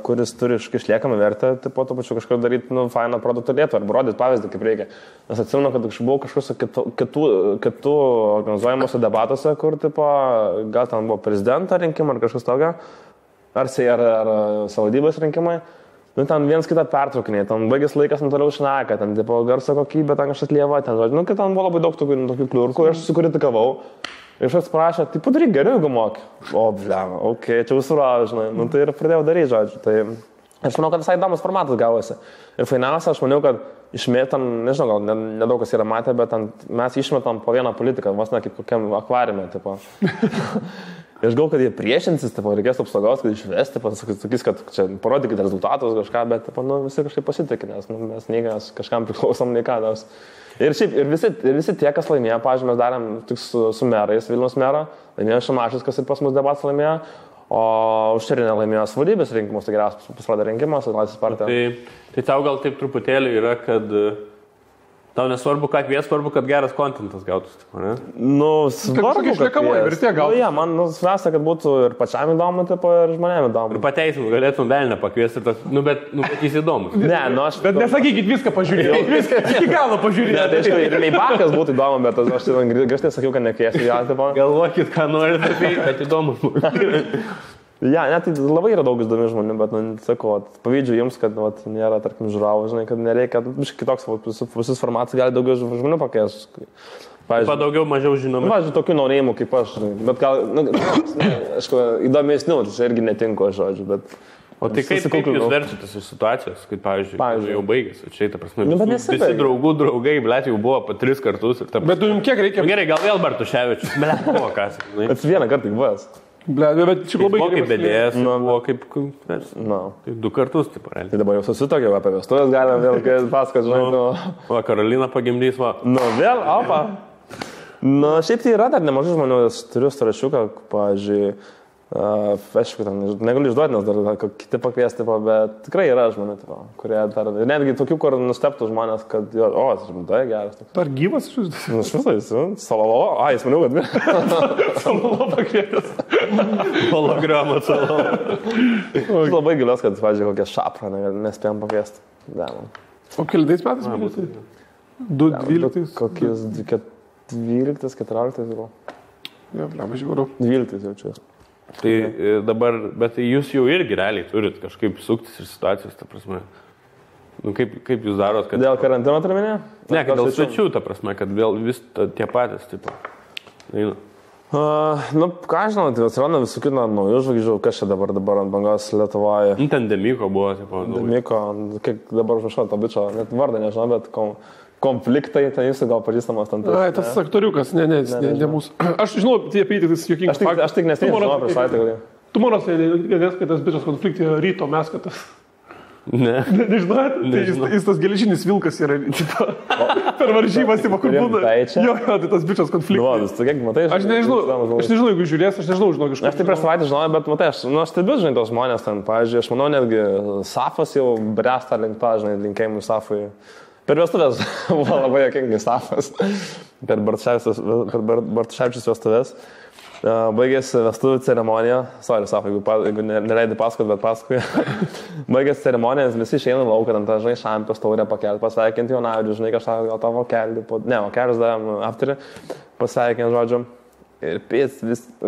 S2: kuris turi išliekamą vertę, tipo, to pačiu kažkur daryti, nu, fainą produktą lietuvą, arba rodyti pavyzdį, kaip reikia. Nes atsimenu, kad aš buvau kažkokiuose kitų organizuojamuose debatuose, kur, tipo, gal ten buvo prezidento rinkimai ar kažkas tokio. Ar savivaldybės rinkimai, nu ten viens kitą pertraukinė, ten baigės laikas, nu toliau šneka, ten tipo garso kokybė, ten kažkas lieva, ten žodžiu, nu kad ten buvo labai daug tokių kliurkų, aš susikritikavau ir aš atsiprašau, tai padaryk geriau, jeigu moki. O, blema, okei, čia užsurau, žinai, nu tai ir pradėjau daryti, žodžiu, tai aš manau, kad visai įdomus formatas gavosi. Ir fainiausia, aš maniau, kad išmėtam, nežinau, gal nedaug kas yra matę, bet mes išmetam po vieną politiką, vos ne kaip kokiam akvariume, tipo. Ir aš galvoju, kad jie priešinsis, tipo, reikės apsaugos, kad išvesti, sakys, kad čia parodykite rezultatus kažką, bet tipo, nu, visi kažkaip pasitikė, nes nu, mes nei kažkam priklausom, nei ką. Ir šiaip, ir visi tie, kas laimėjo, pavyzdžiui, mes darėm tik su merais, Vilniaus merą, laimėjo Šimašius, kas ir pas mus debatas laimėjo, o Užčerinė laimėjo savivaldybės rinkimus, tai geriausias pasirodė rinkimas, Laisvės partija.
S3: Tai tau gal taip truputėlį yra, kad tau nesvarbu, ką kvies, svarbu, kad geras kontentas gautųsi, ne?
S2: Nu, svarbu, kad
S1: išliekamoji vertė gautų.
S2: Nu, man svarbiausia, kad būtų ir pačiam įdomu, tipo, ir žmonėm įdomu.
S3: Ir pateisim, galėtum velnę pakviesti, bet jis įdomus.
S2: Ne, nu aš...
S1: Bet nesakykit viską pažiūrėti, viską iki galo pažiūrėti.
S2: Ne, tai aišku, ir Meibakas būtų įdomu, bet aš grįžtai sakiau, kad nekviesiu ją, tipo.
S3: Galvokit, ką norite, bet įdomu.
S2: Ja, net tai labai yra daug įdomių žmonių, bet, nu, sakau, pavydžiu jums, kad nėra, tarkim, žiūrovų, žinai, kad nereikia, kitoks, visus formatus gali daugiau žmonių pakviesti.
S3: Daugiau, mažiau žinomi.
S2: Pavyzdžiui, tokių norėjimų kaip aš, bet gal, aišku, įdomesnių, čia irgi netinku, žodžiu, bet...
S3: O tai kaip jūs verčiatės iš situacijos, kai, pavyzdžiui, jau baigėsi, čia, ta prasme, visi draugai, blėt, jau buvo 3 kartus.
S1: Bet tu jums kiek reikia?
S3: Gerai, gal vėl Bartuševičius, blėt, buvo kas.
S2: Bet vieną kartą tik buvęs.
S1: Bet čia labai
S3: gerai. Kaip bedėjęs, buvo kaip 2 kartus, taip, realiai.
S2: Tai dabar jau susitokėm apie vestuvės, galim vėl pasakot, žinai,
S3: Va, Karolina pagimdys, va.
S2: Nu, vėl, opa. Nu, šiaip tai yra dar nemažai žmonių, turiu starašiuką, pavyzdžiui, aišku, negaliu išduoti, nes dar kiti pakviesti, bet tikrai yra žmonių, kurie dar, netgi tokių, kur nusteptų žmonės, kad, tas žmontai geras.
S1: Ar gyvas iš jūsų?
S2: Nu, šviesais, Salalovo, jis maniau, kad
S1: Salalovo pakvietęs.
S3: Hologramą Salalovo.
S2: Aš labai gilios, kad, pavyzdžiui, kokią šaprą nespėjom pakviesti.
S1: O kelintais metais pakviesti? 12?
S2: Kokiais 12, 14 gal.
S1: Jo, blema, žiūrėjau.
S2: 12 jaučiu.
S3: Tai dabar, bet jūs jau irgi realiai turit kažkaip suktis ir situacijos, ta prasme. Nu, kaip jūs darot, kad...
S2: Dėl karantino turminė?
S3: Ne, kad dėl svečių, ta prasme, kad vėl vis tie patys, tipo. Eina.
S2: Nu, ką žinau, tai atsiranda visų kitų naujų žvaigždžių, kas čia dabar ant bangos Lietuvoje.
S3: Nu, ten Demiko buvo, tipo.
S2: Demiko, kiek dabar užrašau tą bičą, net vardą nežinau, bet konfliktai, tai jūsų gal pažįstamas ten.
S1: Ai, tas aktoriukas, ne mūsų. Aš žinau, tie apytikis juokingas.
S2: Aš tik nesėdėjau prieš savaitę.
S1: Tu mano sėdėjęs, kad tas bičas konfliktai ryto mes, kad tas...
S3: Ne.
S1: Nežinot? Tai jis tas geležinis vilkas yra, per varžybas, kur būna. Jo, tai tas bičas konfliktas. Aš nežinau, jeigu žiūrės, aš nežinau, žinau kažką.
S2: Aš tai prieš savaitę žinojau, bet matai, aš stebiu, žinai, tos žmonės ten, pavyzdžiui, aš manau, netgi Safas jau bręsta link to, žinai, linkėjimų Safui. Per vestuvės buvo labai jokingai Safas, per Bartuševičius vestuvės. Baigėsi vestuvių ceremonija, sorry, Safai, jeigu neleidai pasakot, bet pasakoju. Baigėsi ceremonija, visi išeina lauką, ten tą, žinai, šampės taurę pakelti, pasveikinti Jonavičių, žinai, kažką gal tą vokelį, vokelis davėm aptarį, pasveikinti, žodžiu. Ir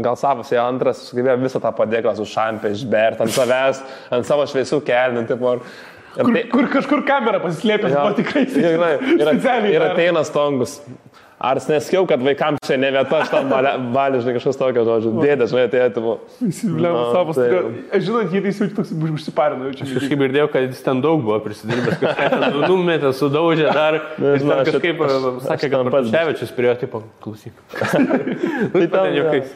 S2: gal Safas jau antras, sugebėjo visą tą padėklą su šampė išberti ant savęs, ant savo šviesių kelnių, tipo.
S1: Kur kažkur kamera pasislėpė, buvo tikrai specialiai.
S2: Ir ateina Stongus. Ar neskiau, kad vaikams čia ne vieta, aš tam valį, žinai, kažkas tokio, žodžiu. Dėdė, žinai, atėjo.
S1: Įsivilėm Safas. Aš žinau, jie jaučiu toks užsiparino.
S3: Aš kažkaip girdėjau, kad jis ten daug buvo prisidirbęs, kažką ten numetė, sudaužė dar. Ir ten kažkaip sakė, kad Bartuševičius prie jo, tipo, klausyk. Tai ten juokais.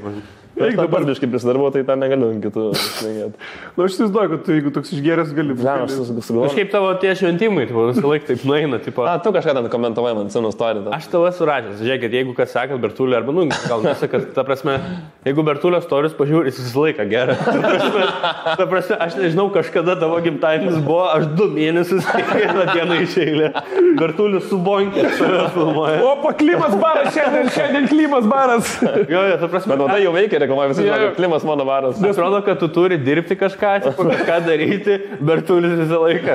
S2: Aš dabar biškai prisidarbu, tai ten negaliu kitų šnekėti.
S1: Na, aš įsivaizduoju, kad tu, jeigu toks išgeręs, gali...
S3: Kažkaip tavo tie šventimai, tu visą laiką taip nueina, tipo...
S2: Tu kažką ten komentavai man senu istoriją.
S3: Aš tavo surašęs, žiūrėkit, jeigu kas sakat Bertulį, arba, gal nesakat, ta prasme, jeigu Bertulio storius pažiūrės, jis visą laiką gerai. Ta prasme, aš nežinau, kažkada tavo gimtadienis buvo, aš 2 mėnesius kiekvieną dieną iš eilę. Bertulis su bonkė save filmuoja.
S1: Opa, Klimas baras, šiandien Klimas baras.
S3: Jo, ta prasme.
S2: Bet tai jau veikia, reklamuoja visi, kad Klimas mano baras.
S3: Nes rodo, kad tu turi dirbti kažką, kažką daryti, Bertulis visą laiką.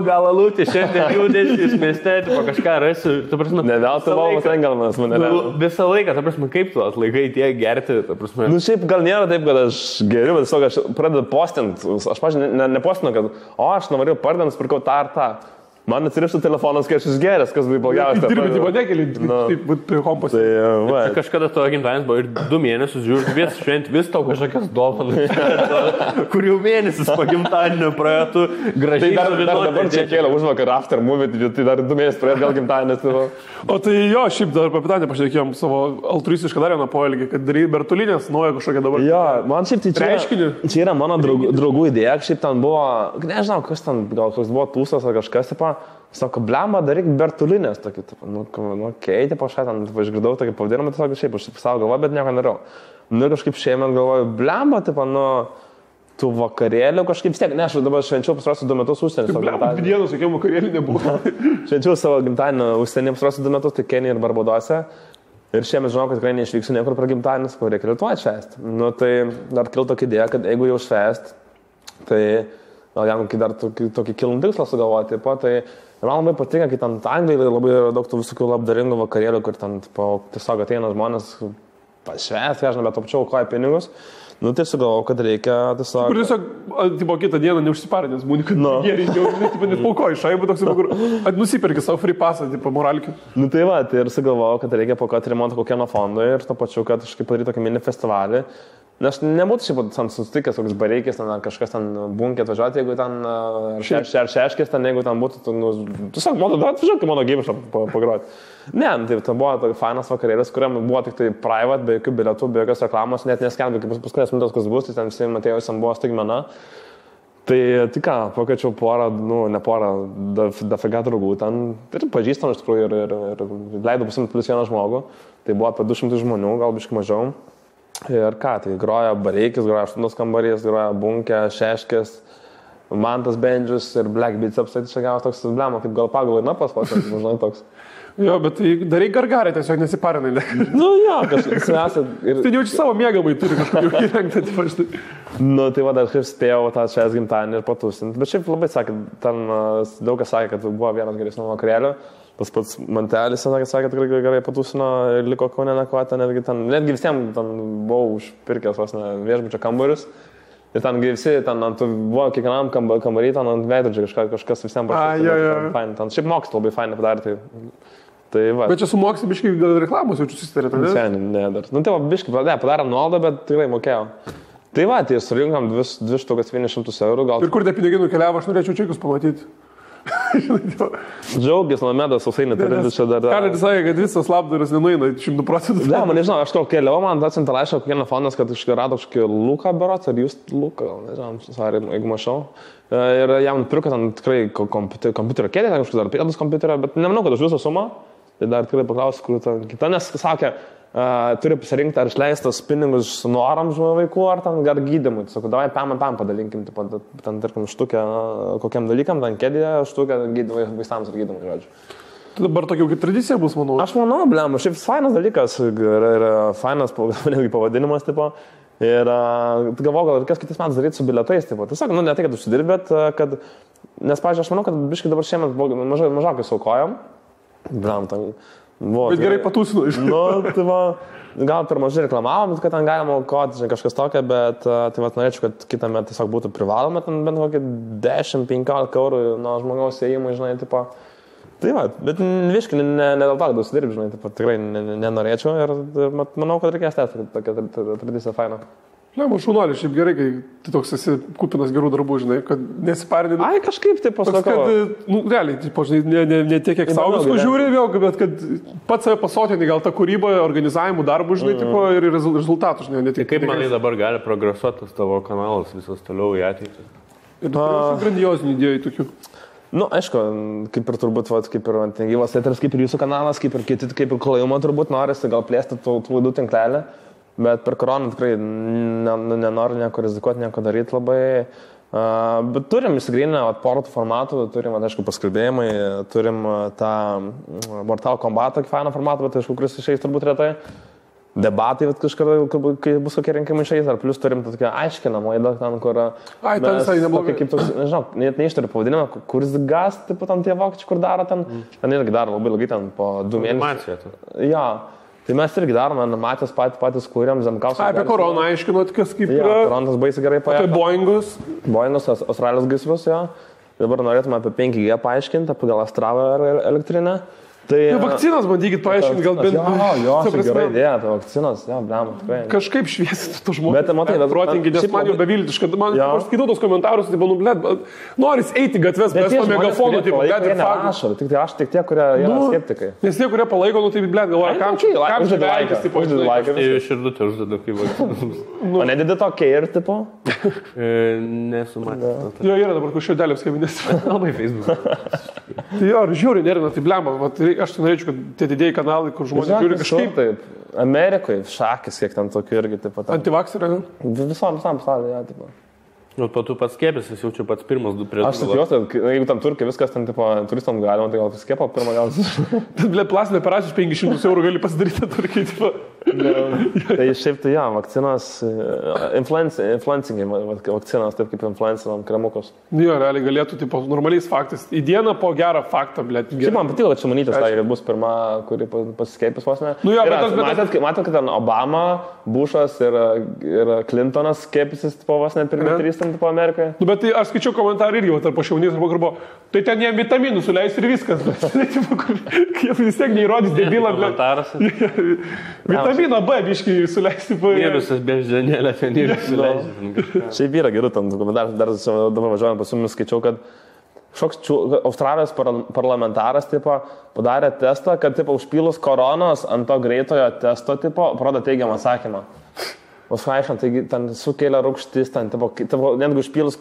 S3: Gal alūti, šiandien judėsis mieste, kažką rasiu.
S2: Ne veltui valmas engelmanas mane.
S3: Visą laiką, ta prasme, kaip tu atlaikai tiek gerti, ta prasme.
S2: Šiaip gal nėra taip, kad aš geriu, bet tiesiog aš pradedu postinti. Aš, pažiūrėjau, nepostinu, kad aš norėjau pardant, pirkau tą ar tą. Man atsirištų telefonas, kai aš išgeręs, kas buvo blogiausia.
S1: Dirbti vadekėlį, taip, prie kompas.
S3: Tai kažkada tavo gimtadienis buvo ir 2 mėnesius, žiūrėk, vis šventi, vis tau kažkokias dovanas, kur jau mėnesis po gimtadienio praėjo, tu gražiai.
S2: Tai dar dabar čia kėlė užvakar after movie, tai dar 2 mėnesius praėjo gal gimtadienis.
S1: O tai jo, šiaip dar apie Pitanį pašnekėjom savo altruistišką dar vieną poelgį, kad darai Bertulinės naują kažkokią dabar.
S2: Jo, man šiaip tai čia yra mano draugų idėja, šiaip ten buvo, nežinau, kas ten, gal koks buvo tūsas ar kažkas, sako, blemba, daryk Bertulinės tokį, keitė po šią, ten išgirdau tokį pavadinimą, tiesiog šiaip aš savo galvoju, bet nieko nedarau. Ir kažkaip šiemet galvoju, blemba, tų vakarėlių kažkaip stiek, ne, aš dabar švenčiau pastarosius 2 metus užsienį.
S1: Blemba, dienos, jokių vakarėlių nebuvo.
S2: Švenčiau savo gimtadienį užsienį pastarosius 2 metus, tai Kenija ir Barbadose. Ir šiemet žinau, kad tikrai neišvyksiu niekur per gimtadienis, ko reikia Lietuvoj švęsti. Tai dar kilo tokia idėja, kad jeigu jau švęsti, tai gal jam dar tokį kilnų tikslą sugalvoti. Tai man labai patinka, kai ten Anglijoje labai daug tų visokių labdaringų vakarėlių, kur ten tiesiog ateina žmonės pašvęsti, aš bet apčiau koją pinigus. Tai sugalvojau, kad reikia tiesiog...
S1: Kur tiesiog, kitą dieną neužsiparinęs, būni, kad geriau, net paukoji šaibų toks, kur nusipirki savo free passą, moralkių.
S2: Tai ir sugalvojau, kad reikia paukoti remontą kokieno fondo ir to pačiu, kad kažkaip padaryti tokį mini festivalį. Nes nebūtų šiaip susitikęs koks bareikis, ten kažkas ten bunkė atvažiuoti, jeigu ten šeškės, ten jeigu ten būtų, tiesiog atvažiuoti mano gyvišą pagroti. Ne, tai buvo tokia fainas vakarėlis, kuriam buvo tik tai private, be jokių bilietų, be jokios reklamos, net neskelbė, kaip paskutinės minutės kas bus, tai ten visi Matėjusiam buvo staigmena. Tai ką, pakviečiau porą, ne porą, dafiga draugų ten, ir pažįstam iš tikrųjų ir leidau pasimti +1 žmogų, tai buvo apie 200 žmonių, gal biškai mažiau. Ir ką, tai groja bareikis, groja 8 kambarys, groja bunkė, šeškės, Mantas Bendžius ir Black Beats apsait čia gavos toks blemo, kaip gal pagal ir napas pasakė, žinai toks.
S1: Jo, bet tai darai gargarį, tiesiog nesiparinai.
S2: Jo, kažkas esat.
S1: Tai jaučiu savo mėgamai, turi kažkokį įrengtą, taip aš tai.
S2: Tai va, dar kaip spėjau tą švęs gimtadienį ir patusinti. Bet šiaip labai sakė, ten daug kas sakė, kad buvo vienas geresnių vakarėlių. Tas pats Mantelis sakė, kad tikrai gerai patusino ir liko Kaune nakvoti, netgi visiems ten buvau užpirkęs vos ne viešbučio kambarius. Ir ten visi, ten buvo kiekvienam kambarį, ten ant veidrodžio kažkas visiems parašė. Ten šiaip mokslas labai fainai padarė. Tai va.
S1: Bet čia su mokslu biškai gal reklamos jaučiu susitarė, tai
S2: ne? Ne, dar. Tai va, biškai padarėm nuolaidą, bet tikrai mokėjau. Tai va, tai surinkam 2,100 €.
S1: Ir kur tie pinigai nukeliavo, aš norėčiau čekius pamatyti.
S2: Džiaugis, Nomedas, Sausainė, turintis čia dar.
S1: Ką sakė, kad visas labdaras nenueina 100%.
S2: Ne, man nežinau, aš keliau, man atsiuntė laišką kokieno fondas, kad rado kažkokį Luką berots, ar jūs Luką, gal nežinau, jeigu mačiau. Ir jam pirko ten tikrai kompiuterio kėdė, ten kažkas dar pėdus kompiuterio, bet nemanau, kad už visą sumą. Tai dar tikrai paklausiu, kur ta kita, nes sakė, turi pasirinkti, ar išleistas pinigus norams vaikų, ar ten gar gydymui. Sakau, davai pam padalinkim, ten, tarkim, štukę kokiam dalykam, ten kėdėje, štukę gydymui vaistams ir gydymui, žodžiu.
S1: Tai dabar tokia kaip tradicija bus, manau.
S2: Aš manau, blem, šiaip fainas dalykas, yra fainas netgi pavadinimas, tipo. Ir galvoju, gal reikės kitais metais daryti su bilietais, tipo. Tiesiog, ne tai, kad užsidirbi, bet kad, nes, pavyzdžiui, aš manau, kad biškai dabar šiemet mažokai saukojam. Blam, ten buvo.
S1: Bet gerai patūsinu iš.
S2: Tai va, gal per mažai reklamavom, kad ten galima aukoti, kažkas tokio, bet tai va, norėčiau, kad kitą metą tiesiog būtų privaloma, ten bent kokį 10-15 € nuo žmogaus ėjimų, žinai, tipo. Tai va, bet viškai, ne dėl to, kad užsidirbi, žinai, tipo, tikrai nenorėčiau ir manau, kad reikės tęsti tokią tradiciją fainą.
S1: Lemo, šaunuolį, šiaip gerai, kai tu toks esi kupinas gerų darbų, žinai, kad nesiparinė.
S2: Ai, kažkaip taip pasakau.
S1: Kad, realiai, tipo, žinai, ne tiek, kiek savo visko žiūri vėl, bet kad pats save pasotinį gal tą kūrybą, organizavimų darbų, žinai, tipo, ir rezultatų, žinai, ne tik.
S3: Kaip manai dabar gali progresuotas tavo kanalas visas toliau į ateitį?
S1: Ir grandiozinių idėjų tokių.
S2: Aišku, kaip ir turbūt, kaip ir gyvas eteris, kaip ir jūsų kanalas, kaip ir kiti, kaip ir klajumą turbūt norisi gal plėsti tų laidų tinklelį. Bet per koroną tikrai nenoriu nieko rizikuoti, nieko daryti labai. Bet turim įsigryninę porų formatų, turim, aišku, paskalbėjimai, turim tą Mortal Kombat fainą formatą, bet aišku, kuris išeis turbūt retai. Debatai, kažkada, kai bus kokie rinkimai išeis, ar plus turim tokia aiškinama laida, ten, kur...
S1: Ai, ten visai neblogai.
S2: Kaip toks, nežinau, net neištariu pavadinimą, kuris gas, tipo, ten tie vokiečiai, kur daro ten. Ten irgi daro labai ilgai, ten po 2 mėnesius.
S3: Animacija.
S2: Ja. Tai mes irgi darome animacijas patys kūrėm, Zemkauskas.
S1: Apie koroną aiškinot, kas kaip yra.
S2: Ja, koronas baisiai gerai paėjo.
S1: Apie Boeingus.
S2: Boeingus, Australijos gaisrus, jo. Dabar norėtume apie 5G paaiškinti, apie gal Astravą elektrinę. Tai
S1: vakcinas bandykit paaiškinti, gal bent...
S2: Jo, gerai idėja, apie vakcinas, jo, blema, tikrai.
S1: Kažkaip šviesti tų žmonių.
S2: Bet, matai,
S1: protingi, nes man jau beviltiška. Aš skaitau tos komentarus, tai banu, blėt, noris eiti gatves, bet to megafono, tai blėt, ir faktų.
S2: Tik tai aš, tik tie, kurie yra skeptikai.
S1: Nes tie, kurie palaiko, tai blėt, galvoja, kam čia laikas, tipo,
S3: Tai širdutė uždeda kaip vakcinas.
S2: O nedėdė to care, tipo?
S3: Nesu matęs.
S1: Jo, yra dabar kažkodėlės kabinės.
S3: Labai Facebook.
S1: Jo, žiūri, nerina, tai blema. Aš tai norėčiau, kad tie didėjai kanalai, kur žmonės žiūri kažkaip.
S2: Taip. Amerikoje šakis, kiek ten tokių irgi, taip pat.
S1: Antivakseriai, ne?
S2: Visam pasaulyje, ja, taip pat.
S3: O po tu pats skėpėsi, jau čia pats pirmas du prieš.
S2: Aš tikiuosi, jeigu tam turkai viskas ten, tipo, turistam galima, tai gal skėpo pirmą gal.
S1: Bet, blė, plastinė operacija 500 eurų gali pasidaryti turkiai, tipo.
S2: Tai šiaip tai, ja, vakcinas, influencingai vakcinas, taip kaip influencinam kremukus.
S1: Jo, realiai galėtų, tipo, normaliais faktais. Į dieną po gerą faktą, blė.
S2: Šiaip man patiko, kad Šimonytės tai bus pirma, kuri pasiskėpęs vos ne.
S1: Nu jo,
S2: matėt, kad ten Obama, Bushas ir Clintonas skėpėsis, tipo, vos ne pirmi 3 tipo Amerikoje.
S1: Nu, bet tai aš skaičiau komentarą irgi, tarp Šimonytės arba Garbo, tai ten jie vitaminų suleis ir viskas. Jie vis tiek neįrodys debilą, blė. Vitaminą B biškį suleis.
S3: Mėnusas beždžionėlė ten ir suleis.
S2: Šiaip yra gerų tam komentarų, dar dabar važiuojant pas jumis skaičiau, kad Australijos parlamentaras tipo, padarė testą, kad tipo, užpylus koronos ant to greitojo testo tipo, parodo teigiamą atsakymą. Užaišant, taigi ten sukelia rūgštis, ten, netgi užpylus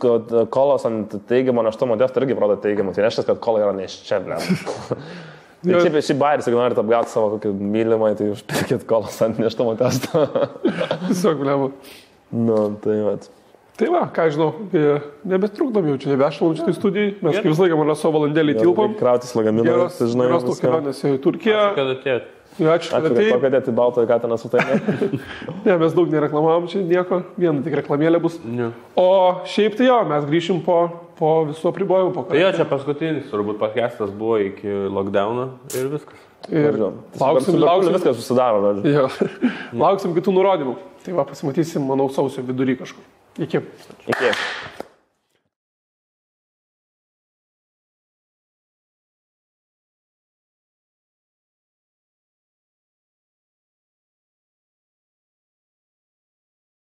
S2: kolos ant teigiamo neštumo testo irgi parodo teigiamą. Tai reiškia, kad kola yra neščia, blė. Tai šiaip bairis, jeigu norite apgauti savo kokį mylimą, tai užpirkit kolos ant neštumo testo.
S1: Tiesiog, blė.
S2: Nu, tai vat.
S1: Tai va, ką žinau, nebetrukdom jau čia, nebešalom šitai studijai. Mes kaip visą laiką man savo valandėlį tilpom.
S2: Krautis lagaminą.
S1: Geros tos kelionės į Turkiją.
S3: Kad atėjot.
S1: Ačiū, kad atėjai.
S2: Pakadėti baltą katiną su tai.
S1: Ne, mes daug nereklamavom čia nieko, viena tik reklamėlė bus.
S3: Ne.
S1: O šiaip tai jo, mes grįšim po visų apribojimų.
S3: Tai jo, čia paskutinis, turbūt podcastas buvo iki lockdowno ir viskas.
S1: Ir lauksim,
S2: viskas susidaro.
S1: Jo, lauksim kitų nurodymų. Tai va, pasimatysim, manau, sausio vidury kažkur. Iki.